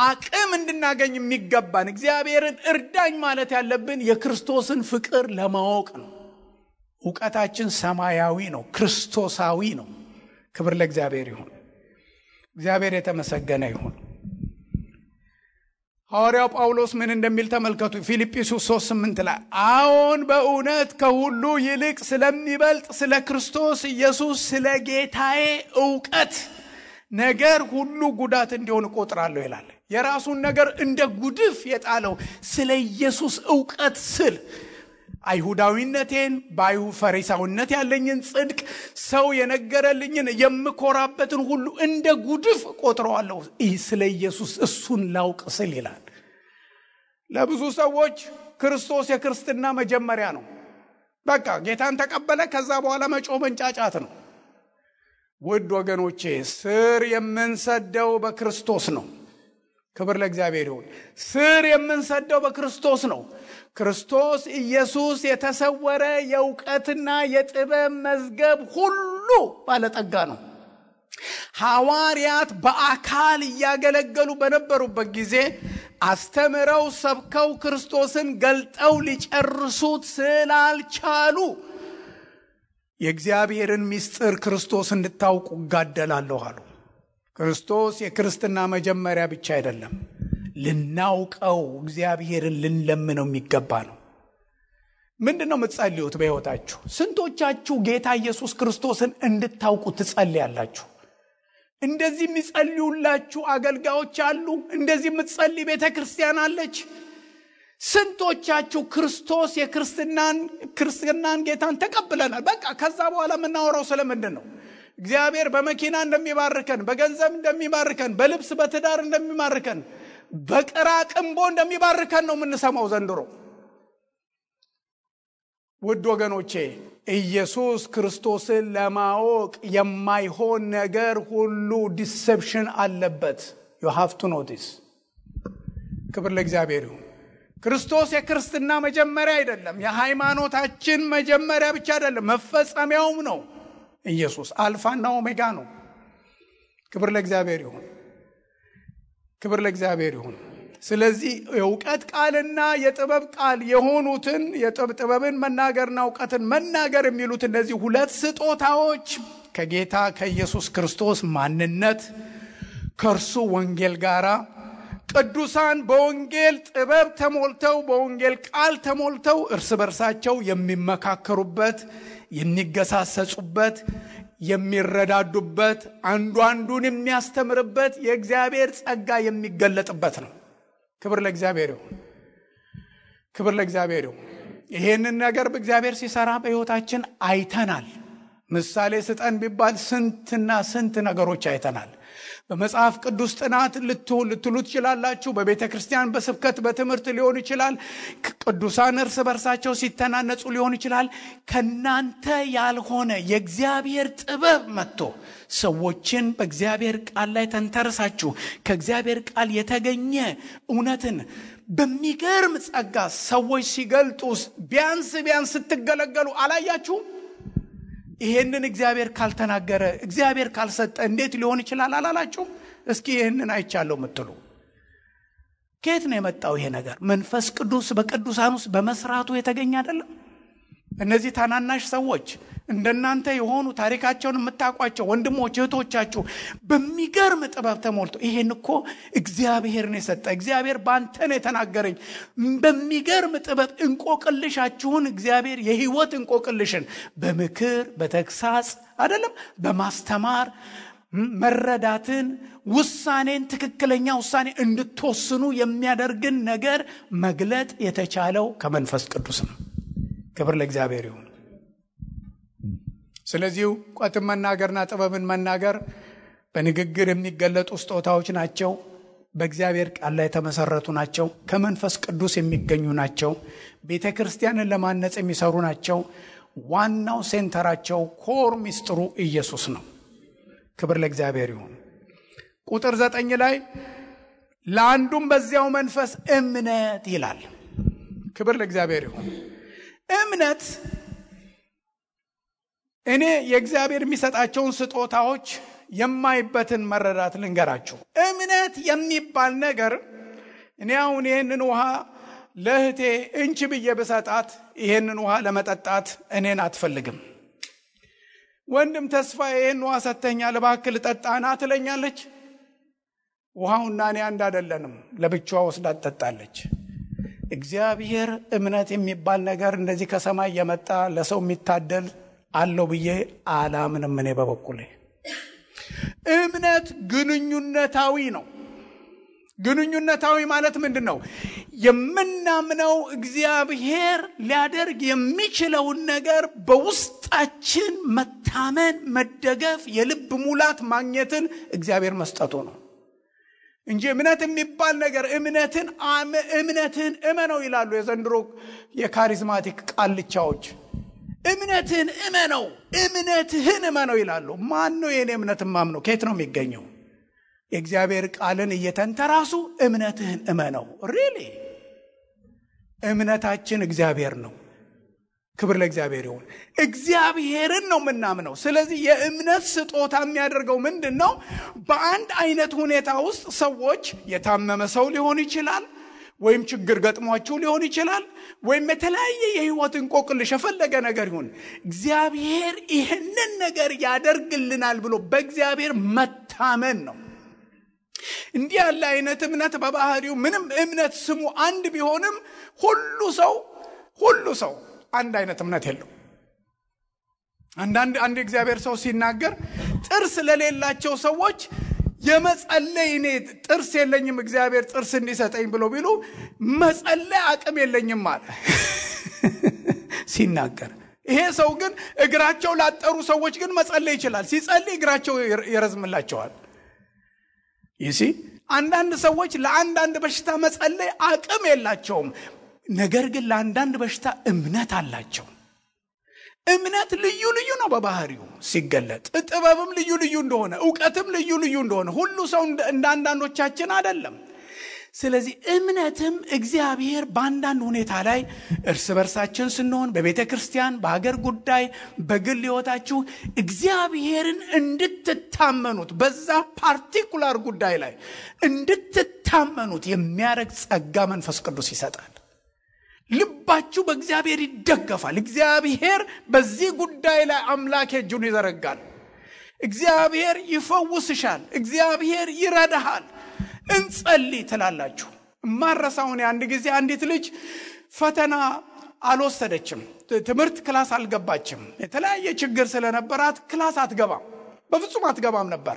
አቅም እንድናገኝ የሚገባን እግዚአብሔርን እርዳኝ ማለት ያለብን የክርስቶስን ፍቅር ለማወቅ ነው። ዕውቀታችን ሰማያዊ ነው፣ ክርስቶሳዊ ነው። ክብር ለእግዚአብሔር ይሁን። እግዚአብሔር የተመሰገነ ይሁን። ሐዋርያው ጳውሎስ ምን እንደሚል ተመልከቱ። ፊልጵስዩስ 3:8 ላይ አዎን በእውነት ከሁሉ ይልቅ ስለሚበልጥ ስለ ክርስቶስ ኢየሱስ ስለ ጌታዬ ዕውቀት ነገር ሁሉ ጉዳት እንዲሆን እቆጥራለሁ ይላል። የራሱን ነገር እንደ ጉድፍ የጣለው ስለ ኢየሱስ ዕውቀት ስል አይሁዳዊነቴን ፈሪሳውነት ያለኝን ጽድቅ ሰው የነገረልኝን የምኮራበትን ሁሉ እንደ ጉድፍ ቆጥረዋለሁ ስለ ኢየሱስ እሱን ላውቅ ስል ይላል። ለብዙ ሰዎች ክርስቶስ የክርስትና መጀመሪያ ነው። በቃ ጌታን ተቀበለ፣ ከዛ በኋላ መጮህ መንጫጫት ነው። ውድ ወገኖቼ ስር የምንሰደው በክርስቶስ ነው። ክብር ለእግዚአብሔር ይሁን። ስር የምንሰደው በክርስቶስ ነው። ክርስቶስ ኢየሱስ የተሰወረ የእውቀትና የጥበብ መዝገብ ሁሉ ባለጠጋ ነው። ሐዋርያት በአካል እያገለገሉ በነበሩበት ጊዜ አስተምረው ሰብከው ክርስቶስን ገልጠው ሊጨርሱት ስላልቻሉ የእግዚአብሔርን ምስጢር ክርስቶስ እንድታውቁ እጋደላለሁ አሉ። ክርስቶስ የክርስትና መጀመሪያ ብቻ አይደለም፣ ልናውቀው እግዚአብሔርን ልንለምነው የሚገባ ነው። ምንድነው የምትጸልዩት በሕይወታችሁ? ስንቶቻችሁ ጌታ ኢየሱስ ክርስቶስን እንድታውቁ ትጸልያላችሁ? እንደዚህ የሚጸልዩላችሁ አገልጋዮች አሉ። እንደዚህ የምትጸልይ ቤተክርስቲያን አለች። ስንቶቻችሁ ክርስቶስ የክርስትናን ጌታን ተቀብለናል፣ በቃ ከዛ በኋላ የምናወራው ስለምንድን ነው? እግዚአብሔር በመኪና እንደሚባርከን፣ በገንዘብ እንደሚባርከን፣ በልብስ በትዳር እንደሚባርከን፣ በቅራቅንቦ እንደሚባርከን ነው የምንሰማው ዘንድሮ። ውድ ወገኖቼ ኢየሱስ ክርስቶስን ለማወቅ የማይሆን ነገር ሁሉ ዲሴፕሽን አለበት። you have to know this። ክብር ለእግዚአብሔር ይሁን። ክርስቶስ የክርስትና መጀመሪያ አይደለም፣ የሃይማኖታችን መጀመሪያ ብቻ አይደለም፣ መፈጸሚያውም ነው። ኢየሱስ አልፋና ኦሜጋ ነው። ክብር ለእግዚአብሔር ይሁን። ክብር ለእግዚአብሔር ይሁን። ስለዚህ የእውቀት ቃልና የጥበብ ቃል የሆኑትን የጥበብን መናገርና እውቀትን መናገር የሚሉት እነዚህ ሁለት ስጦታዎች ከጌታ ከኢየሱስ ክርስቶስ ማንነት ከእርሱ ወንጌል ጋራ ቅዱሳን በወንጌል ጥበብ ተሞልተው በወንጌል ቃል ተሞልተው እርስ በርሳቸው የሚመካከሩበት፣ የሚገሳሰጹበት፣ የሚረዳዱበት፣ አንዱ አንዱን የሚያስተምርበት የእግዚአብሔር ጸጋ የሚገለጥበት ነው። ክብር ለእግዚአብሔር ይሁን። ክብር ለእግዚአብሔር ይሁን። ይሄንን ነገር በእግዚአብሔር ሲሰራ በሕይወታችን አይተናል። ምሳሌ ስጠን ቢባል ስንትና ስንት ነገሮች አይተናል። በመጽሐፍ ቅዱስ ጥናት ልትሉ ትችላላችሁ። በቤተ ክርስቲያን በስብከት በትምህርት ሊሆን ይችላል። ቅዱሳን እርስ በርሳቸው ሲተናነጹ ሊሆን ይችላል። ከናንተ ያልሆነ የእግዚአብሔር ጥበብ መጥቶ ሰዎችን በእግዚአብሔር ቃል ላይ ተንተርሳችሁ ከእግዚአብሔር ቃል የተገኘ እውነትን በሚገርም ጸጋ ሰዎች ሲገልጡ ቢያንስ ስትገለገሉ አላያችሁም? ይሄንን እግዚአብሔር ካልተናገረ እግዚአብሔር ካልሰጠ እንዴት ሊሆን ይችላል አላላችሁም? እስኪ ይሄንን አይቻለሁ የምትሉ ከየት ነው የመጣው ይሄ ነገር? መንፈስ ቅዱስ በቅዱሳን ውስጥ በመስራቱ የተገኘ አይደለም? እነዚህ ታናናሽ ሰዎች እንደናንተ የሆኑ ታሪካቸውን የምታውቋቸው ወንድሞች እህቶቻችሁ በሚገርም ጥበብ ተሞልቶ ይሄን እኮ እግዚአብሔር ነው የሰጠ፣ እግዚአብሔር ባንተ ነው የተናገረኝ፣ በሚገርም ጥበብ እንቆቅልሻችሁን እግዚአብሔር የህይወት እንቆቅልሽን በምክር በተግሳጽ አይደለም በማስተማር መረዳትን ውሳኔን ትክክለኛ ውሳኔ እንድትወስኑ የሚያደርግን ነገር መግለጥ የተቻለው ከመንፈስ ቅዱስ ነው። ክብር ለእግዚአብሔር ይሁን። ስለዚህ እውቀትን መናገርና ጥበብን መናገር በንግግር የሚገለጡ ስጦታዎች ናቸው። በእግዚአብሔር ቃል ላይ የተመሰረቱ ናቸው። ከመንፈስ ቅዱስ የሚገኙ ናቸው። ቤተ ክርስቲያንን ለማነጽ የሚሰሩ ናቸው። ዋናው ሴንተራቸው ኮር ሚስጥሩ ኢየሱስ ነው። ክብር ለእግዚአብሔር ይሁን። ቁጥር 9 ላይ ለአንዱም በዚያው መንፈስ እምነት ይላል። ክብር ለእግዚአብሔር ይሁን። እምነት እኔ የእግዚአብሔር የሚሰጣቸውን ስጦታዎች የማይበትን መረዳት ልንገራችሁ። እምነት የሚባል ነገር እኔ አሁን ይሄንን ውሃ ለእህቴ እንቺ ብዬ በሰጣት ይሄንን ውሃ ለመጠጣት እኔን አትፈልግም። ወንድም ተስፋ ይሄን ውሃ ሰተኛል እባክህ ልጠጣና ትለኛለች። ውሃውና እኔ አንድ አይደለንም፣ ለብቻዋ ወስዳ ትጠጣለች። እግዚአብሔር እምነት የሚባል ነገር እንደዚህ ከሰማይ የመጣ ለሰው የሚታደል አለው ብዬ አላምንም። እኔ በበኩሌ እምነት ግንኙነታዊ ነው። ግንኙነታዊ ማለት ምንድነው? የምናምነው እግዚአብሔር ሊያደርግ የሚችለውን ነገር በውስጣችን መታመን፣ መደገፍ፣ የልብ ሙላት ማግኘትን እግዚአብሔር መስጠቱ ነው። እንጂ እምነት የሚባል ነገር እምነትን እመነው ይላሉ የዘንድሮ የካሪዝማቲክ ቃልቻዎች። እምነትን እመነው ይላሉ። ማን ነው የኔ እምነት ማምነው? ከየት ነው የሚገኘው? የእግዚአብሔር ቃልን እየተንተራሱ እምነትህን እመነው። ሪሊ እምነታችን እግዚአብሔር ነው። ክብር ለእግዚአብሔር ይሁን። እግዚአብሔርን ነው የምናምነው። ስለዚህ የእምነት ስጦታ የሚያደርገው ምንድነው? በአንድ አይነት ሁኔታ ውስጥ ሰዎች የታመመ ሰው ሊሆን ይችላል፣ ወይም ችግር ገጥሟቸው ሊሆን ይችላል፣ ወይም የተለያየ የህይወት እንቆቅልሽ የፈለገ ነገር ይሁን፣ እግዚአብሔር ይህንን ነገር ያደርግልናል ብሎ በእግዚአብሔር መታመን ነው። እንዲህ ያለ አይነት እምነት በባህሪው ምንም እምነት ስሙ አንድ ቢሆንም ሁሉ ሰው አንድ አይነት እምነት የለው። አንድ እግዚአብሔር ሰው ሲናገር ጥርስ ለሌላቸው ሰዎች የመጸለይ እኔ ጥርስ የለኝም እግዚአብሔር ጥርስ እንዲሰጠኝ ብሎ ቢሉ መጸለይ አቅም የለኝም ማለት ሲናገር፣ ይሄ ሰው ግን እግራቸው ላጠሩ ሰዎች ግን መጸለይ ይችላል። ሲጸልይ እግራቸው ይረዝምላቸዋል። ይሲ አንዳንድ ሰዎች ለአንዳንድ በሽታ መጸለይ አቅም የላቸውም፣ ነገር ግን ለአንዳንድ በሽታ እምነት አላቸው። እምነት ልዩ ነው በባህሪው ሲገለጥ፣ ጥበብም ልዩ እንደሆነ፣ ዕውቀትም ልዩ እንደሆነ፣ ሁሉ ሰው እንዳንዳንዶቻችን አይደለም። ስለዚህ እምነትም እግዚአብሔር በአንዳንድ ሁኔታ ላይ እርስ በርሳችን ስንሆን፣ በቤተ ክርስቲያን፣ በሀገር ጉዳይ፣ በግል ሕይወታችሁ እግዚአብሔርን እንድትታመኑት በዛ ፓርቲኩላር ጉዳይ ላይ እንድትታመኑት የሚያደርግ ጸጋ መንፈስ ቅዱስ ይሰጣል። ልባችሁ በእግዚአብሔር ይደገፋል። እግዚአብሔር በዚህ ጉዳይ ላይ አምላክ እጁን ይዘረጋል። እግዚአብሔር ይፈውስሻል። እግዚአብሔር ይረዳሃል። እንጸልይ ትላላችሁ። ማረሳውን አንድ ጊዜ አንዲት ልጅ ፈተና አልወሰደችም፣ ትምህርት ክላስ አልገባችም። የተለያየ ችግር ስለነበራት ክላስ በፍጹም አትገባም ነበር።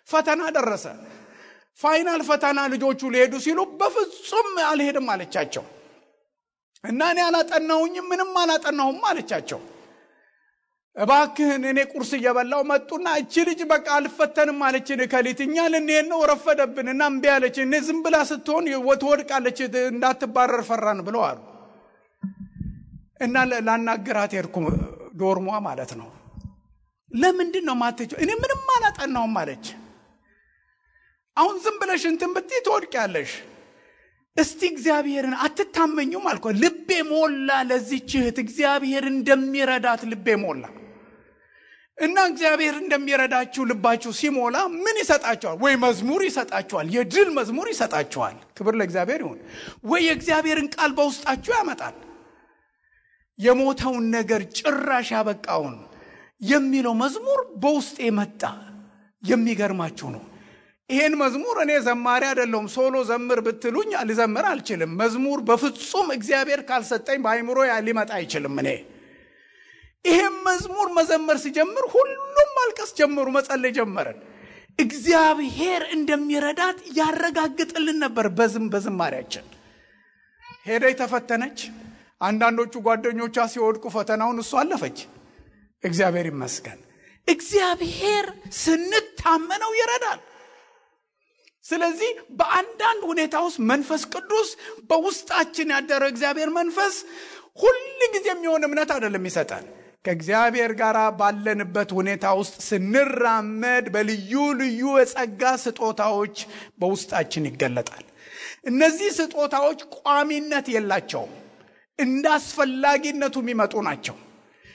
ፈተና ደረሰ። ፋይናል ፈተና ልጆቹ ሊሄዱ ሲሉ በፍጹም አልሄድም አለቻቸው። እና እኔ ምንም አላጠናሁም አለቻቸው። እባክህን እኔ ቁርስ እየበላው መጡና እቺ ልጅ በቃ አልፈተንም አለችን። ከሊትኛ ልንሄድ ነው ረፈደብንና እምቢ አለች። እኔ ዝም ብላ ስትሆን ወትወድቃለች እንዳትባረር ፈራን ብለው አሉ። እና ላናገራት ሄድኩ፣ ዶርሟ ማለት ነው። ለምንድን ነው ማትሄጂው? እኔ ምንም አላጠናሁም አለች። አሁን ዝም ብለሽ እንትን ብትይ ትወድቂያለሽ። እስቲ እግዚአብሔርን አትታመኙም አልኩ። ልቤ ሞላ ለዚህች እህት እግዚአብሔር እንደሚረዳት ልቤ ሞላ። እና እግዚአብሔር እንደሚረዳችሁ ልባችሁ ሲሞላ ምን ይሰጣችኋል? ወይ መዝሙር ይሰጣችኋል፣ የድል መዝሙር ይሰጣችኋል። ክብር ለእግዚአብሔር ይሁን። ወይ የእግዚአብሔርን ቃል በውስጣችሁ ያመጣል። የሞተውን ነገር ጭራሽ ያበቃውን የሚለው መዝሙር በውስጤ መጣ። የሚገርማችሁ ነው። ይሄን መዝሙር እኔ ዘማሪ አይደለሁም። ሶሎ ዘምር ብትሉኝ ልዘምር አልችልም። መዝሙር በፍጹም እግዚአብሔር ካልሰጠኝ በአይምሮ ሊመጣ አይችልም። እኔ ይሄን መዝሙር መዘመር ሲጀምር ሁሉም ማልቀስ ጀመሩ፣ መጸለይ ጀመረን። እግዚአብሔር እንደሚረዳት ያረጋግጥልን ነበር። በዝማሪያችን ሄደች፣ ተፈተነች። አንዳንዶቹ ጓደኞቿ ሲወድቁ ፈተናውን እሷ አለፈች። እግዚአብሔር ይመስገን። እግዚአብሔር ስንታመነው ይረዳል። ስለዚህ በአንዳንድ ሁኔታ ውስጥ መንፈስ ቅዱስ በውስጣችን ያደረው እግዚአብሔር መንፈስ ሁሉ ጊዜ የሚሆን እምነት አይደለም ይሰጣል። ከእግዚአብሔር ጋር ባለንበት ሁኔታ ውስጥ ስንራመድ በልዩ የጸጋ ስጦታዎች በውስጣችን ይገለጣል። እነዚህ ስጦታዎች ቋሚነት የላቸውም፣ እንዳስፈላጊነቱ የሚመጡ ናቸው።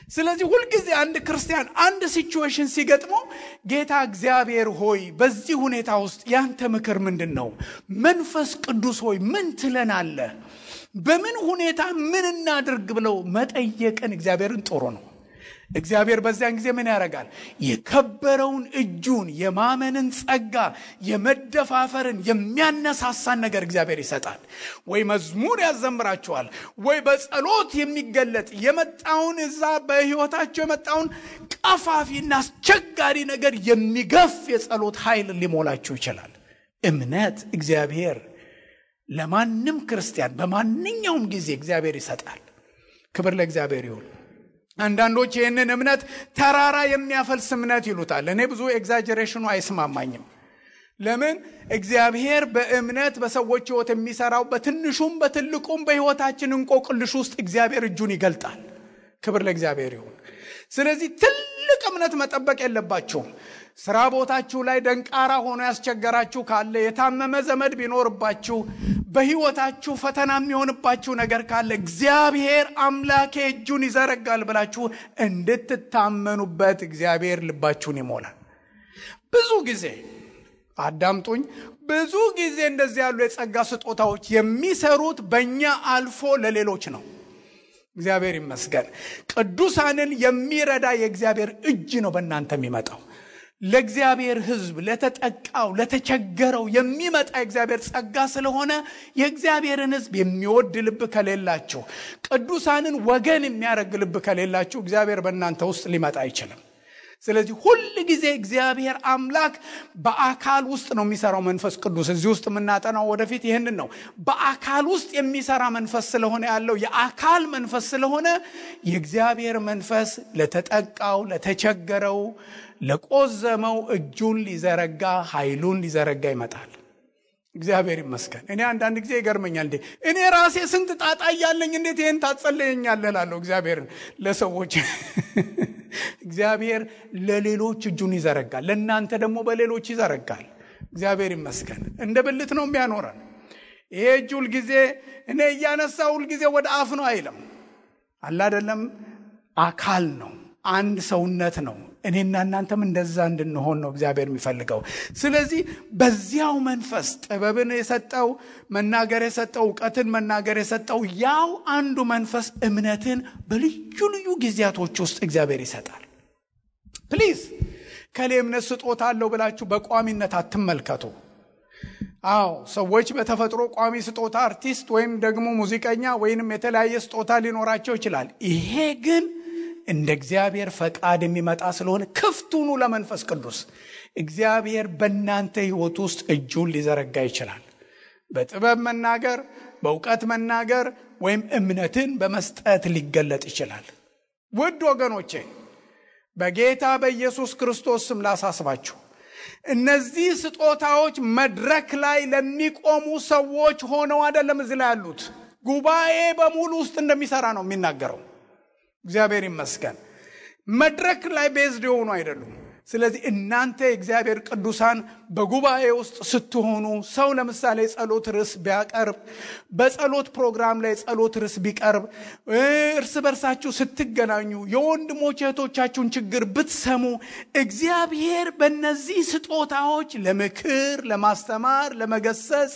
ስለዚህ ሁልጊዜ አንድ ክርስቲያን አንድ ሲቹዌሽን ሲገጥመው ጌታ እግዚአብሔር ሆይ በዚህ ሁኔታ ውስጥ ያንተ ምክር ምንድነው? መንፈስ ቅዱስ ሆይ ምን ትለናለህ? በምን ሁኔታ ምን እናድርግ ብለው መጠየቅን እግዚአብሔርን ጥሩ ነው። እግዚአብሔር በዚያን ጊዜ ምን ያደርጋል? የከበረውን እጁን፣ የማመንን ጸጋ፣ የመደፋፈርን የሚያነሳሳን ነገር እግዚአብሔር ይሰጣል። ወይ መዝሙር ያዘምራቸዋል፣ ወይ በጸሎት የሚገለጥ የመጣውን እዛ በሕይወታቸው የመጣውን ቀፋፊና አስቸጋሪ ነገር የሚገፍ የጸሎት ኃይል ሊሞላቸው ይችላል። እምነት እግዚአብሔር ለማንም ክርስቲያን በማንኛውም ጊዜ እግዚአብሔር ይሰጣል። ክብር ለእግዚአብሔር ይሁን። አንዳንዶች ይህንን እምነት ተራራ የሚያፈልስ እምነት ይሉታል። እኔ ብዙ ኤግዛጀሬሽኑ አይስማማኝም። ለምን? እግዚአብሔር በእምነት በሰዎች ሕይወት የሚሰራው በትንሹም በትልቁም በሕይወታችን እንቆቅልሽ ውስጥ እግዚአብሔር እጁን ይገልጣል። ክብር ለእግዚአብሔር ይሁን። ስለዚህ ትልቅ እምነት መጠበቅ የለባችሁም። ስራ ቦታችሁ ላይ ደንቃራ ሆኖ ያስቸገራችሁ ካለ፣ የታመመ ዘመድ ቢኖርባችሁ፣ በሕይወታችሁ ፈተና የሚሆንባችሁ ነገር ካለ እግዚአብሔር አምላኬ እጁን ይዘረጋል ብላችሁ እንድትታመኑበት እግዚአብሔር ልባችሁን ይሞላል። ብዙ ጊዜ አዳምጡኝ፣ ብዙ ጊዜ እንደዚህ ያሉ የጸጋ ስጦታዎች የሚሰሩት በእኛ አልፎ ለሌሎች ነው። እግዚአብሔር ይመስገን። ቅዱሳንን የሚረዳ የእግዚአብሔር እጅ ነው በእናንተ የሚመጣው። ለእግዚአብሔር ሕዝብ፣ ለተጠቃው፣ ለተቸገረው የሚመጣ የእግዚአብሔር ጸጋ ስለሆነ የእግዚአብሔርን ሕዝብ የሚወድ ልብ ከሌላችሁ፣ ቅዱሳንን ወገን የሚያደርግ ልብ ከሌላችሁ እግዚአብሔር በእናንተ ውስጥ ሊመጣ አይችልም። ስለዚህ ሁል ጊዜ እግዚአብሔር አምላክ በአካል ውስጥ ነው የሚሰራው መንፈስ ቅዱስ። እዚህ ውስጥ የምናጠናው ወደፊት ይህንን ነው። በአካል ውስጥ የሚሰራ መንፈስ ስለሆነ ያለው የአካል መንፈስ ስለሆነ የእግዚአብሔር መንፈስ ለተጠቃው፣ ለተቸገረው፣ ለቆዘመው እጁን ሊዘረጋ፣ ኃይሉን ሊዘረጋ ይመጣል። እግዚአብሔር ይመስገን። እኔ አንዳንድ ጊዜ ይገርመኛል። እኔ ራሴ ስንት ጣጣ እያለኝ እንዴት ይህን ታጸለየኛለህ እላለሁ እግዚአብሔርን ለሰዎች። እግዚአብሔር ለሌሎች እጁን ይዘረጋል፣ ለእናንተ ደግሞ በሌሎች ይዘረጋል። እግዚአብሔር ይመስገን። እንደ ብልት ነው የሚያኖረን። ይሄ እጅ ሁልጊዜ እኔ እያነሳ ሁልጊዜ ወደ አፍ ነው አይልም። አለ አይደለም? አካል ነው፣ አንድ ሰውነት ነው። እኔና እናንተም እንደዛ እንድንሆን ነው እግዚአብሔር የሚፈልገው። ስለዚህ በዚያው መንፈስ ጥበብን የሰጠው፣ መናገር የሰጠው፣ እውቀትን መናገር የሰጠው ያው አንዱ መንፈስ እምነትን በልዩ ልዩ ጊዜያቶች ውስጥ እግዚአብሔር ይሰጣል። ፕሊዝ ከሌ እምነት ስጦታ አለው ብላችሁ በቋሚነት አትመልከቱ። ሰዎች በተፈጥሮ ቋሚ ስጦታ አርቲስት ወይም ደግሞ ሙዚቀኛ ወይንም የተለያየ ስጦታ ሊኖራቸው ይችላል። ይሄ ግን እንደ እግዚአብሔር ፈቃድ የሚመጣ ስለሆነ ክፍት ሁኑ ለመንፈስ ቅዱስ። እግዚአብሔር በእናንተ ሕይወት ውስጥ እጁን ሊዘረጋ ይችላል። በጥበብ መናገር፣ በእውቀት መናገር ወይም እምነትን በመስጠት ሊገለጥ ይችላል። ውድ ወገኖቼ በጌታ በኢየሱስ ክርስቶስ ስም ላሳስባችሁ፣ እነዚህ ስጦታዎች መድረክ ላይ ለሚቆሙ ሰዎች ሆነው አይደለም እዚህ ላይ ያሉት። ጉባኤ በሙሉ ውስጥ እንደሚሰራ ነው የሚናገረው። እግዚአብሔር ይመስገን። መድረክ ላይ ቤዝድ የሆኑ አይደሉም። ስለዚህ እናንተ የእግዚአብሔር ቅዱሳን በጉባኤ ውስጥ ስትሆኑ፣ ሰው ለምሳሌ ጸሎት ርዕስ ቢያቀርብ፣ በጸሎት ፕሮግራም ላይ ጸሎት ርዕስ ቢቀርብ፣ እርስ በርሳችሁ ስትገናኙ የወንድሞች እህቶቻችሁን ችግር ብትሰሙ፣ እግዚአብሔር በእነዚህ ስጦታዎች ለምክር፣ ለማስተማር፣ ለመገሰጽ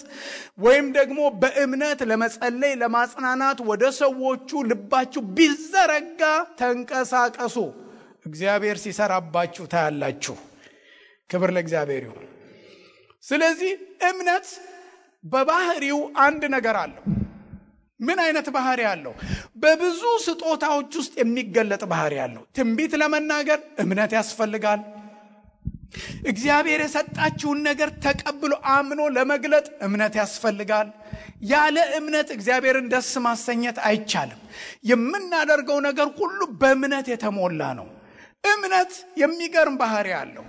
ወይም ደግሞ በእምነት ለመጸለይ፣ ለማጽናናት ወደ ሰዎቹ ልባችሁ ቢዘረጋ ተንቀሳቀሱ። እግዚአብሔር ሲሰራባችሁ ታያላችሁ። ክብር ለእግዚአብሔር ይሁን። ስለዚህ እምነት በባህሪው አንድ ነገር አለው። ምን አይነት ባህሪ አለው? በብዙ ስጦታዎች ውስጥ የሚገለጥ ባህሪ አለው። ትንቢት ለመናገር እምነት ያስፈልጋል። እግዚአብሔር የሰጣችሁን ነገር ተቀብሎ አምኖ ለመግለጥ እምነት ያስፈልጋል። ያለ እምነት እግዚአብሔርን ደስ ማሰኘት አይቻልም። የምናደርገው ነገር ሁሉ በእምነት የተሞላ ነው። እምነት የሚገርም ባህሪ አለው።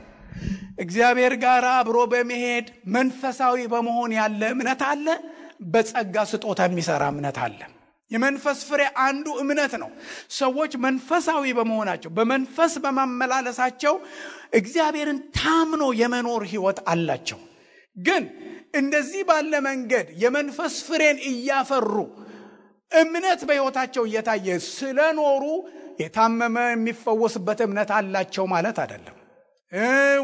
እግዚአብሔር ጋር አብሮ በመሄድ መንፈሳዊ በመሆን ያለ እምነት አለ። በጸጋ ስጦታ የሚሰራ እምነት አለ። የመንፈስ ፍሬ አንዱ እምነት ነው። ሰዎች መንፈሳዊ በመሆናቸው፣ በመንፈስ በማመላለሳቸው እግዚአብሔርን ታምኖ የመኖር ሕይወት አላቸው። ግን እንደዚህ ባለ መንገድ የመንፈስ ፍሬን እያፈሩ እምነት በሕይወታቸው እየታየ ስለኖሩ የታመመ የሚፈወስበት እምነት አላቸው ማለት አይደለም።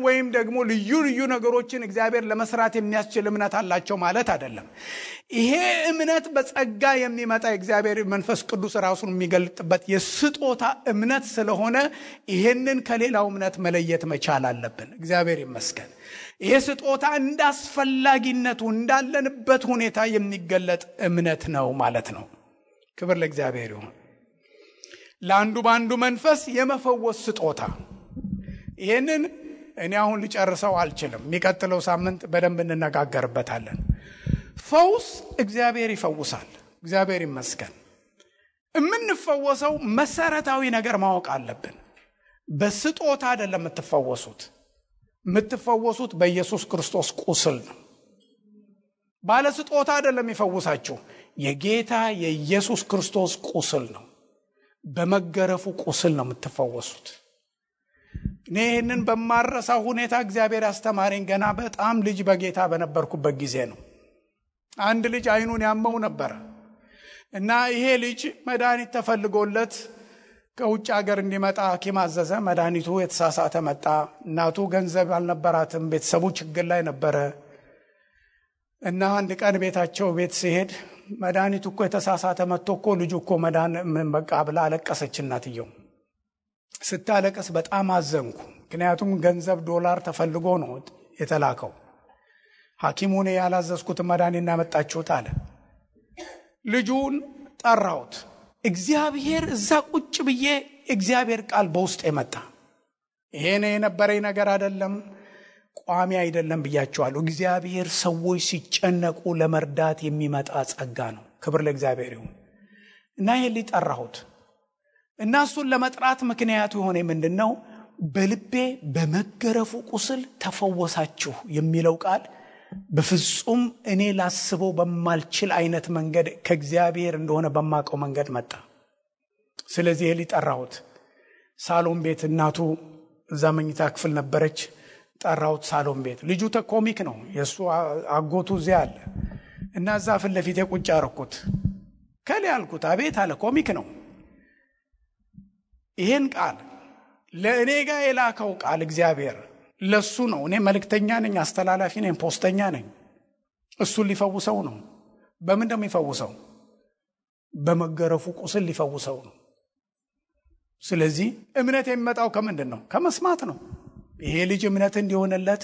ወይም ደግሞ ልዩ ልዩ ነገሮችን እግዚአብሔር ለመስራት የሚያስችል እምነት አላቸው ማለት አይደለም። ይሄ እምነት በጸጋ የሚመጣ እግዚአብሔር መንፈስ ቅዱስ ራሱን የሚገልጥበት የስጦታ እምነት ስለሆነ ይሄንን ከሌላው እምነት መለየት መቻል አለብን። እግዚአብሔር ይመስገን። ይሄ ስጦታ እንዳስፈላጊነቱ እንዳለንበት ሁኔታ የሚገለጥ እምነት ነው ማለት ነው። ክብር ለእግዚአብሔር ይሁን። ለአንዱ በአንዱ መንፈስ የመፈወስ ስጦታ፣ ይህንን እኔ አሁን ልጨርሰው አልችልም። የሚቀጥለው ሳምንት በደንብ እንነጋገርበታለን። ፈውስ እግዚአብሔር ይፈውሳል። እግዚአብሔር ይመስገን። የምንፈወሰው መሰረታዊ ነገር ማወቅ አለብን። በስጦታ አይደለም የምትፈወሱት። የምትፈወሱት በኢየሱስ ክርስቶስ ቁስል ነው። ባለስጦታ አይደለም ይፈውሳችሁ፣ የጌታ የኢየሱስ ክርስቶስ ቁስል ነው። በመገረፉ ቁስል ነው የምትፈወሱት። እኔ ይህንን በማረሳው ሁኔታ እግዚአብሔር ያስተማረኝ ገና በጣም ልጅ በጌታ በነበርኩበት ጊዜ ነው። አንድ ልጅ አይኑን ያመው ነበር እና ይሄ ልጅ መድኃኒት ተፈልጎለት ከውጭ ሀገር እንዲመጣ ሐኪም አዘዘ። መድኃኒቱ የተሳሳተ መጣ። እናቱ ገንዘብ አልነበራትም፣ ቤተሰቡ ችግር ላይ ነበረ እና አንድ ቀን ቤት ሲሄድ መድኃኒቱ እኮ የተሳሳተ መጥቶ እኮ ልጁ እኮ በቃ ብላ አለቀሰች። እናትየው ስታለቅስ በጣም አዘንኩ። ምክንያቱም ገንዘብ ዶላር ተፈልጎ ነው የተላከው። ሐኪሙን ያላዘዝኩት መድኃኒት ያመጣችሁት አለ። ልጁን ጠራሁት። እግዚአብሔር እዛ ቁጭ ብዬ እግዚአብሔር ቃል በውስጥ የመጣ ይሄ የነበረኝ ነገር አይደለም፣ ቋሚ አይደለም ብያቸዋለሁ። እግዚአብሔር ሰዎች ሲጨነቁ ለመርዳት የሚመጣ ጸጋ ነው። ክብር ለእግዚአብሔር ይሁን እና ይሄ ሊጠራሁት እና እሱን ለመጥራት ምክንያቱ የሆነ ምንድነው? በልቤ በመገረፉ ቁስል ተፈወሳችሁ የሚለው ቃል በፍጹም እኔ ላስበው በማልችል አይነት መንገድ ከእግዚአብሔር እንደሆነ በማቀው መንገድ መጣ። ስለዚህ ይሄ ሊጠራሁት ሳሎን ቤት፣ እናቱ እዛ መኝታ ክፍል ነበረች። ጠራሁት ሳሎን ቤት። ልጁ ኮሚክ ነው፣ የሱ አጎቱ እዚያ አለ እና እዛ ፊት ለፊት ቁጭ አደረኩት። ከሌ አልኩት። አቤት አለ። ኮሚክ ነው። ይሄን ቃል ለእኔ ጋር የላከው ቃል እግዚአብሔር ለሱ ነው። እኔ መልእክተኛ ነኝ፣ አስተላላፊ ነኝ፣ ፖስተኛ ነኝ። እሱን ሊፈውሰው ነው። በምን እንደሚፈውሰው? በመገረፉ ቁስል ሊፈውሰው ነው። ስለዚህ እምነት የሚመጣው ከምንድን ነው? ከመስማት ነው። ይሄ ልጅ እምነት እንዲሆንለት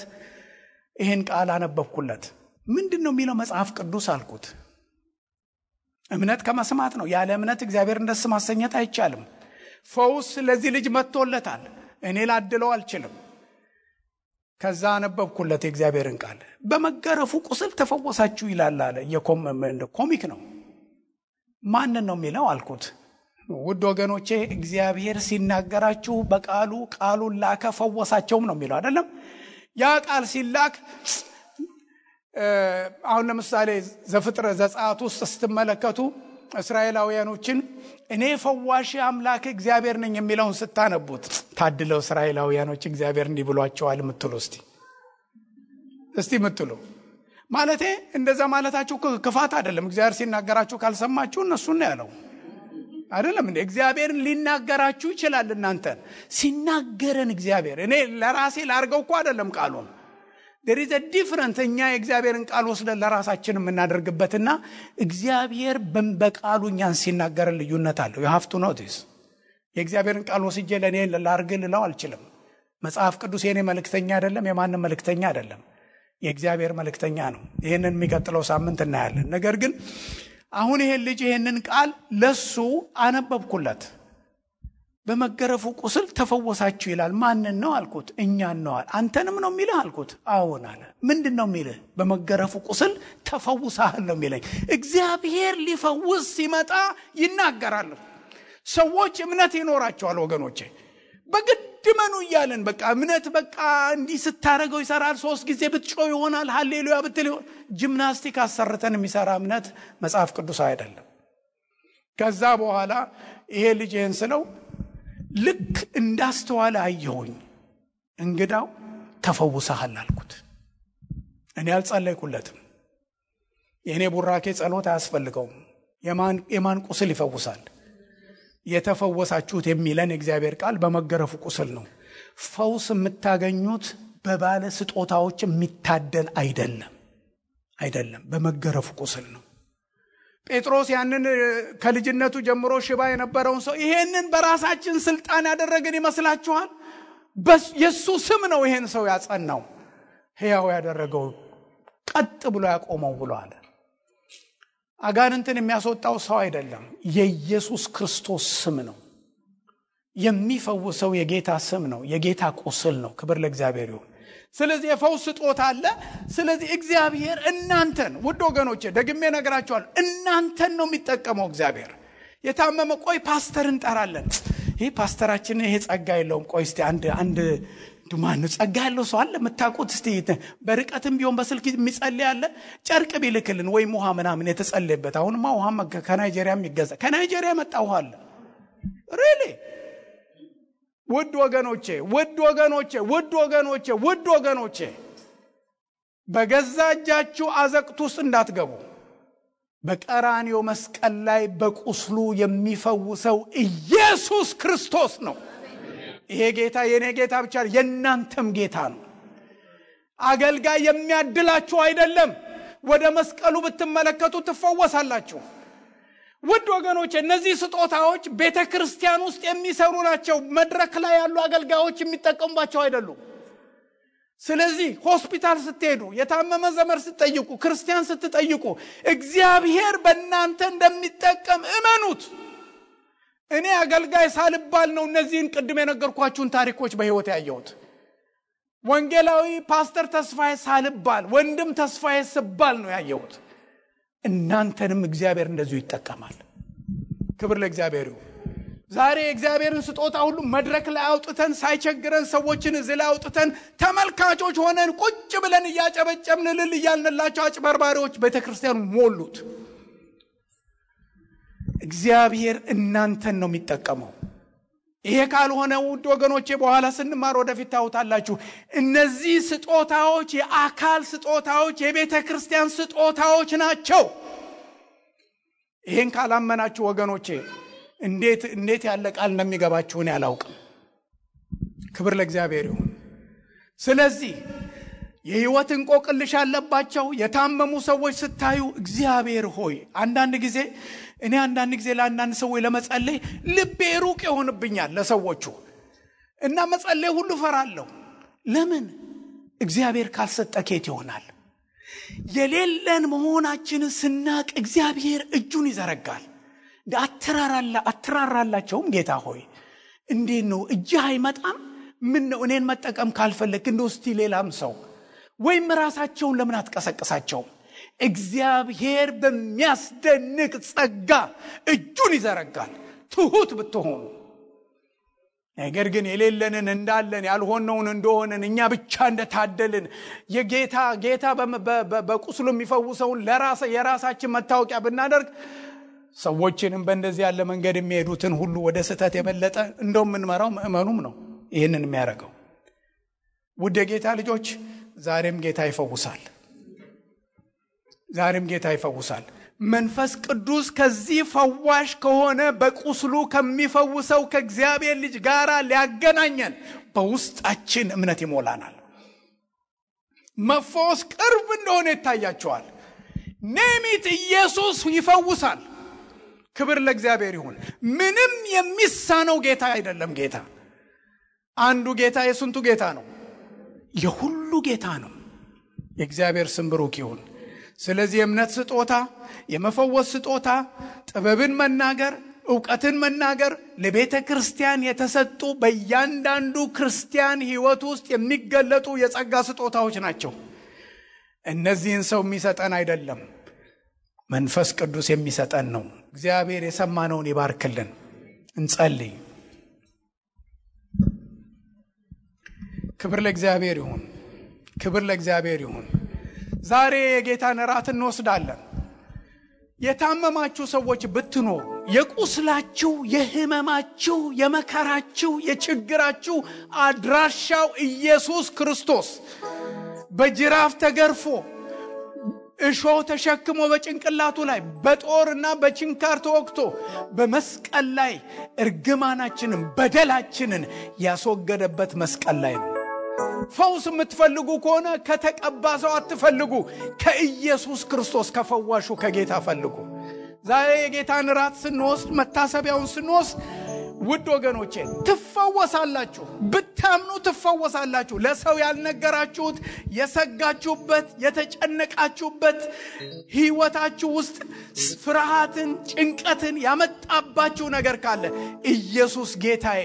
ይሄን ቃል አነበብኩለት። ምንድነው የሚለው መጽሐፍ ቅዱስ አልኩት። እምነት ከመስማት ነው። ያለ እምነት እግዚአብሔርን ደስ ማሰኘት አይቻልም። ፈውስ ለዚህ ልጅ መጥቶለታል። እኔ ላድለው አልችልም። ከዛ አነበብኩለት የእግዚአብሔርን ቃል። በመገረፉ ቁስል ተፈወሳችሁ ይላል አለ። ኮሚክ ነው። ማንን ነው የሚለው አልኩት። ውድ ወገኖቼ እግዚአብሔር ሲናገራችሁ በቃሉ ቃሉን ላከ ፈወሳቸውም ነው የሚለው አይደለም? ያ ቃል ሲላክ አሁን ለምሳሌ ዘጸአት ውስጥ ስትመለከቱ እስራኤላውያኖችን እኔ ፈዋሽ አምላክ እግዚአብሔር ነኝ የሚለውን ስታነቡት ታድለው እስራኤላውያኖች እግዚአብሔር እንዲህ ብሏቸዋል የምትሉ እስቲ ምትሉ ማለቴ እንደዛ ማለታችሁ ክፋት አይደለም። እግዚአብሔር ሲናገራችሁ ካልሰማችሁ እነሱን ነው ያለው አይደለም እንዴ? እግዚአብሔርን ሊናገራችሁ ይችላል። እናንተ ሲናገረን እግዚአብሔር እኔ ለራሴ ላርገው እኮ አይደለም ቃሉን there is a difference። እኛ የእግዚአብሔርን ቃል ወስደን ለራሳችን የምናደርግበትና እግዚአብሔር በቃሉ እኛን ሲናገረን ልዩነት አለው። you have to know this። የእግዚአብሔርን ቃል ወስጄ ለኔ ላርግ ልለው አልችልም። መጽሐፍ ቅዱስ የኔ መልእክተኛ አይደለም፣ የማንም መልእክተኛ አይደለም፣ የእግዚአብሔር መልእክተኛ ነው። ይሄንን የሚቀጥለው ሳምንት እናያለን። ነገር ግን አሁን ይሄን ልጅ ይሄንን ቃል ለሱ አነበብኩለት። በመገረፉ ቁስል ተፈወሳችሁ ይላል። ማንን ነው አልኩት። እኛን ነው አለ። አንተንም ነው የሚልህ አልኩት። አዎን አለ። ምንድነው የሚልህ? በመገረፉ ቁስል ተፈውሳል ነው የሚለኝ። እግዚአብሔር ሊፈውስ ሲመጣ ይናገራል። ሰዎች እምነት ይኖራቸዋል ወገኖቼ። በግድ መኑ እያለን በቃ እምነት በቃ እንዲህ ስታረገው ይሰራል። 3 ጊዜ ብትጮህ ይሆናል፣ ሃሌሉያ ብትል ይሆናል። ጂምናስቲክ አሰርተን የሚሰራ እምነት መጽሐፍ ቅዱስ አይደለም። ከዛ በኋላ ይሄ ልጅ ይሄን ስለው ልክ እንዳስተዋለ አየሁኝ። እንግዳው ተፈውሰሃል አልኩት። እኔ አልጸለይኩለትም። የኔ ቡራኬ ጸሎት አያስፈልገውም። የማን ቁስል ይፈውሳል? የተፈወሳችሁት የሚለን እግዚአብሔር ቃል በመገረፉ ቁስል ነው። ፈውስ የምታገኙት በባለ ስጦታዎች የሚታደል አይደለም፣ በመገረፉ ቁስል ነው። ጴጥሮስ ያንን ከልጅነቱ ጀምሮ ሽባ የነበረውን ሰው ይሄንን በራሳችን ስልጣን ያደረገን ይመስላችኋል? የሱ ስም ነው ይሄን ሰው ያጸናው፣ ሕያው ያደረገው፣ ቀጥ ብሎ ያቆመው ብሎ አለ። አጋንንትን የሚያስወጣው ሰው አይደለም፣ የኢየሱስ ክርስቶስ ስም ነው። የሚፈውሰው የጌታ ስም ነው፣ የጌታ ቁስል ነው። ክብር ለእግዚአብሔር ይሁን። ስለዚህ የፈውስ ስጦታ አለ። ስለዚህ እግዚአብሔር እናንተን ውድ ወገኖቼ ደግሜ ነግራችኋል፣ እናንተን ነው የሚጠቀመው እግዚአብሔር። የታመመ ቆይ ፓስተር እንጠራለን፣ ይሄ ፓስተራችን ይሄ ጸጋ የለውም፣ ቆይ እስቲ አንድ ማን ጸጋ ያለው ሰው አለ መታቆት? እስቲ በርቀትም ቢሆን በስልክ የሚጸልይ አለ? ጨርቅ ቢልክልን ወይም ውሃ ምናምን የተጸለየበት። አሁንማ ውሃ ከናይጄሪያም ይገዛ። ከናይጄሪያ መጣ ውሃ አለ። ሪሊ ውድ ወገኖቼ በገዛ እጃችሁ አዘቅት ውስጥ እንዳትገቡ። በቀራንዮ መስቀል ላይ በቁስሉ የሚፈውሰው ኢየሱስ ክርስቶስ ነው። ይሄ ጌታ የኔ ጌታ ብቻ የእናንተም ጌታ ነው። አገልጋይ የሚያድላችሁ አይደለም። ወደ መስቀሉ ብትመለከቱ ትፈወሳላችሁ። ውድ ወገኖቼ እነዚህ ስጦታዎች ቤተክርስቲያን ውስጥ የሚሰሩ ናቸው። መድረክ ላይ ያሉ አገልጋዮች የሚጠቀሙባቸው አይደሉም። ስለዚህ ሆስፒታል ስትሄዱ፣ የታመመ ዘመድ ስትጠይቁ፣ ክርስቲያን ስትጠይቁ እግዚአብሔር በእናንተ እንደሚጠቀም እመኑት። እኔ አገልጋይ ሳልባል ነው እነዚህን ቅድም የነገርኳችሁን ታሪኮች በህይወት ያየሁት። ወንጌላዊ ፓስተር ተስፋዬ ሳልባል ወንድም ተስፋዬ ስባል ነው ያየሁት። እናንተንም እግዚአብሔር እንደዚሁ ይጠቀማል። ክብር ለእግዚአብሔር ይሁን። ዛሬ እግዚአብሔርን ስጦታ ሁሉ መድረክ ላይ አውጥተን ሳይቸግረን ሰዎችን እዚህ ላይ አውጥተን ተመልካቾች ሆነን ቁጭ ብለን እያጨበጨብን ልል እያልንላቸው አጭበርባሪዎች ቤተክርስቲያኑ ሞሉት። እግዚአብሔር እናንተን ነው የሚጠቀመው። ይሄ ካልሆነ ውድ ወገኖቼ በኋላ ስንማር ወደፊት ታውታላችሁ። እነዚህ ስጦታዎች የአካል ስጦታዎች፣ የቤተክርስቲያን ስጦታዎች ናቸው። ይሄን ካላመናችሁ ወገኖቼ እንዴት ያለ ቃል እንደሚገባችሁ እኔ አላውቅም። ክብር ለእግዚአብሔር ይሁን። ስለዚህ የህይወት እንቆቅልሽ ያለባቸው የታመሙ ሰዎች ስታዩ እግዚአብሔር ሆይ አንዳንድ ጊዜ ለአንዳንድ ሰዎች ለመጸለይ ልቤ ሩቅ ይሆንብኛል ለሰዎቹ እና መጸለይ ሁሉ ፈራለሁ። ለምን? እግዚአብሔር ካልሰጠ ከየት ይሆናል? የሌለን መሆናችንን ስናቅ እግዚአብሔር እጁን ይዘረጋል። አትራራላቸውም። ጌታ ሆይ እንዴት ነው እጅህ አይመጣም? ምን ነው እኔን መጠቀም ካልፈለክ እንደው እስቲ ሌላም ሰው ወይም ራሳቸውን ለምን አትቀሰቅሳቸውም? እግዚአብሔር በሚያስደንቅ ጸጋ እጁን ይዘረጋል ትሁት ብትሆኑ። ነገር ግን የሌለንን እንዳለን ያልሆነውን እንደሆነን እኛ ብቻ እንደታደልን የጌታ በቁስሉ የሚፈውሰውን የራሳችን መታወቂያ ብናደርግ ሰዎችንም በእንደዚህ ያለ መንገድ የሚሄዱትን ሁሉ ወደ ስህተት የበለጠ እንደውም ምንመራው ምእመኑም ነው ይህንን የሚያደርገው። ውድ የጌታ ልጆች ዛሬም ጌታ ይፈውሳል። መንፈስ ቅዱስ ከዚህ ፈዋሽ ከሆነ በቁስሉ ከሚፈውሰው ከእግዚአብሔር ልጅ ጋር ሊያገናኘን በውስጣችን እምነት ይሞላናል። መፈወስ ቅርብ እንደሆነ ይታያቸዋል። ኔሚት ኢየሱስ ይፈውሳል። ክብር ለእግዚአብሔር ይሁን። ምንም የሚሳነው ጌታ አይደለም። ጌታ አንዱ ጌታ የስንቱ ጌታ ነው? የሁሉ ጌታ ነው። የእግዚአብሔር ስም ብሩክ ይሁን። ስለዚህ የእምነት ስጦታ፣ የመፈወስ ስጦታ፣ ጥበብን መናገር፣ ዕውቀትን መናገር ለቤተ ክርስቲያን የተሰጡ በእያንዳንዱ ክርስቲያን ሕይወት ውስጥ የሚገለጡ የጸጋ ስጦታዎች ናቸው። እነዚህን ሰው የሚሰጠን አይደለም፣ መንፈስ ቅዱስ የሚሰጠን ነው። እግዚአብሔር የሰማነውን ይባርክልን። እንጸልይ። ክብር ለእግዚአብሔር ይሁን። ዛሬ የጌታን እራት እንወስዳለን። የታመማችሁ ሰዎች ብትኖሩ የቁስላችሁ፣ የህመማችሁ፣ የመከራችሁ፣ የችግራችሁ አድራሻው ኢየሱስ ክርስቶስ በጅራፍ ተገርፎ እሾህ ተሸክሞ በጭንቅላቱ ላይ በጦርና በችንካር ተወግቶ በመስቀል ላይ እርግማናችንን በደላችንን ያስወገደበት መስቀል ላይ ነው። ፈውስ የምትፈልጉ ከሆነ ከተቀባ ሰው አትፈልጉ፣ ከኢየሱስ ክርስቶስ ከፈዋሹ ከጌታ ፈልጉ። ዛሬ የጌታን ራት ስንወስድ፣ መታሰቢያውን ስንወስድ ውድ ወገኖቼ ትፈወሳላችሁ። ብታምኑ ትፈወሳላችሁ። ለሰው ያልነገራችሁት፣ የሰጋችሁበት፣ የተጨነቃችሁበት ህይወታችሁ ውስጥ ፍርሃትን፣ ጭንቀትን ያመጣባችሁ ነገር ካለ ኢየሱስ ጌታዬ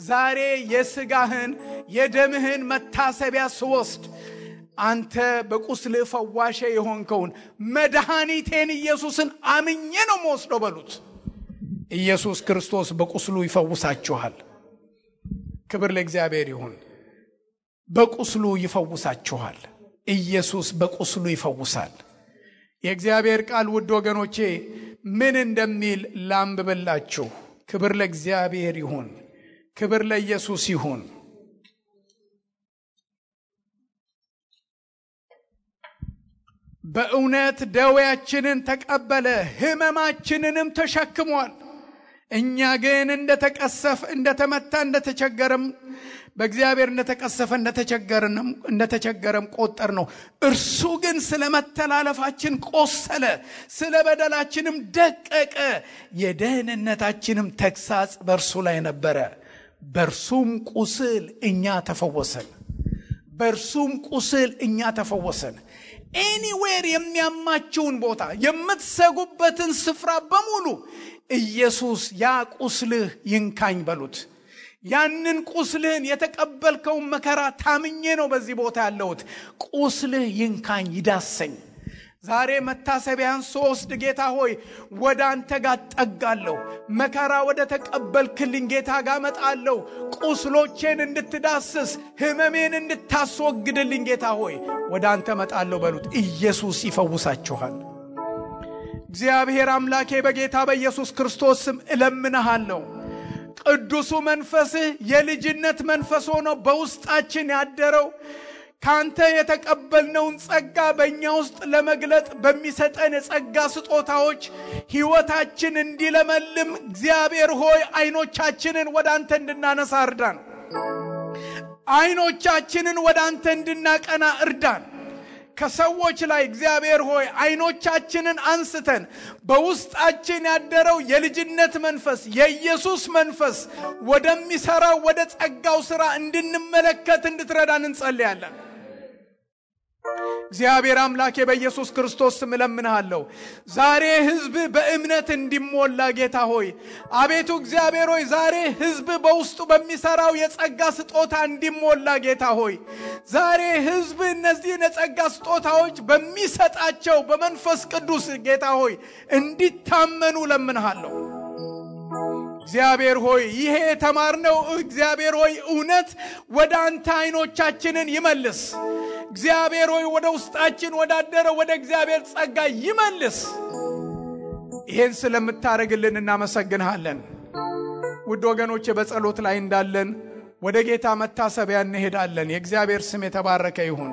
ዛሬ የሥጋህን የደምህን መታሰቢያ ስወስድ አንተ በቁስል ፈዋሼ የሆንከውን መድኃኒቴን ኢየሱስን አምኜ ነው የምወስደው በሉት። ኢየሱስ ክርስቶስ በቁስሉ ይፈውሳችኋል። ክብር ለእግዚአብሔር ይሁን። በቁስሉ ይፈውሳችኋል። ኢየሱስ በቁስሉ ይፈውሳል። የእግዚአብሔር ቃል ውድ ወገኖቼ ምን እንደሚል ላንብብላችሁ። ክብር ለእግዚአብሔር ይሁን፣ ክብር ለኢየሱስ ይሁን። በእውነት ደዌያችንን ተቀበለ፣ ሕመማችንንም ተሸክሟል። እኛ ግን እንደተመታ እንደተቸገረም በእግዚአብሔር እንደተቀሰፈ እንደተቸገረም ቆጠር ነው። እርሱ ግን ስለ መተላለፋችን ቆሰለ፣ ስለ በደላችንም ደቀቀ። የደህንነታችንም ተግሳጽ በእርሱ ላይ ነበረ፣ በእርሱም ቁስል እኛ ተፈወሰን። በእርሱም ቁስል እኛ ተፈወሰን። ኤኒዌር የሚያማችውን ቦታ የምትሰጉበትን ስፍራ በሙሉ ኢየሱስ ያ ቁስልህ ይንካኝ በሉት። ያንን ቁስልህን የተቀበልከውን መከራ ታምኜ ነው በዚህ ቦታ ያለሁት። ቁስልህ ይንካኝ ይዳሰኝ። ዛሬ መታሰቢያን ሶስት ጌታ ሆይ ወደ አንተ ጋር ጠጋለሁ። መከራ ወደ ተቀበልክልኝ ጌታ ጋር መጣለሁ። ቁስሎቼን እንድትዳስስ ህመሜን እንድታስወግድልኝ ጌታ ሆይ ወደ አንተ መጣለሁ በሉት። ኢየሱስ ይፈውሳችኋል። እግዚአብሔር አምላኬ በጌታ በኢየሱስ ክርስቶስ ስም እለምንሃለሁ። ቅዱሱ መንፈስህ የልጅነት መንፈስ ሆኖ በውስጣችን ያደረው ካንተ የተቀበልነውን ጸጋ በእኛ ውስጥ ለመግለጥ በሚሰጠን የጸጋ ስጦታዎች ሕይወታችን እንዲለመልም እግዚአብሔር ሆይ አይኖቻችንን ወደ አንተ እንድናነሳ እርዳን። አይኖቻችንን ወደ አንተ እንድናቀና እርዳን። ከሰዎች ላይ እግዚአብሔር ሆይ አይኖቻችንን አንስተን በውስጣችን ያደረው የልጅነት መንፈስ የኢየሱስ መንፈስ ወደሚሰራው ወደ ጸጋው ሥራ እንድንመለከት እንድትረዳን እንጸልያለን። እግዚአብሔር አምላኬ በኢየሱስ ክርስቶስ ስም እለምንሃለሁ። ዛሬ ሕዝብ በእምነት እንዲሞላ ጌታ ሆይ አቤቱ እግዚአብሔር ሆይ ዛሬ ሕዝብ በውስጡ በሚሰራው የጸጋ ስጦታ እንዲሞላ ጌታ ሆይ ዛሬ ሕዝብ እነዚህን የጸጋ ስጦታዎች በሚሰጣቸው በመንፈስ ቅዱስ ጌታ ሆይ እንዲታመኑ እለምንሃለሁ። እግዚአብሔር ሆይ ይሄ የተማርነው እግዚአብሔር ሆይ እውነት ወደ አንተ አይኖቻችንን ይመልስ። እግዚአብሔር ሆይ ወደ ውስጣችን ወዳደረው ወደ እግዚአብሔር ጸጋ ይመልስ። ይሄን ስለምታረግልን እናመሰግንሃለን። ውድ ወገኖቼ በጸሎት ላይ እንዳለን ወደ ጌታ መታሰቢያ እንሄዳለን። የእግዚአብሔር ስም የተባረከ ይሁን።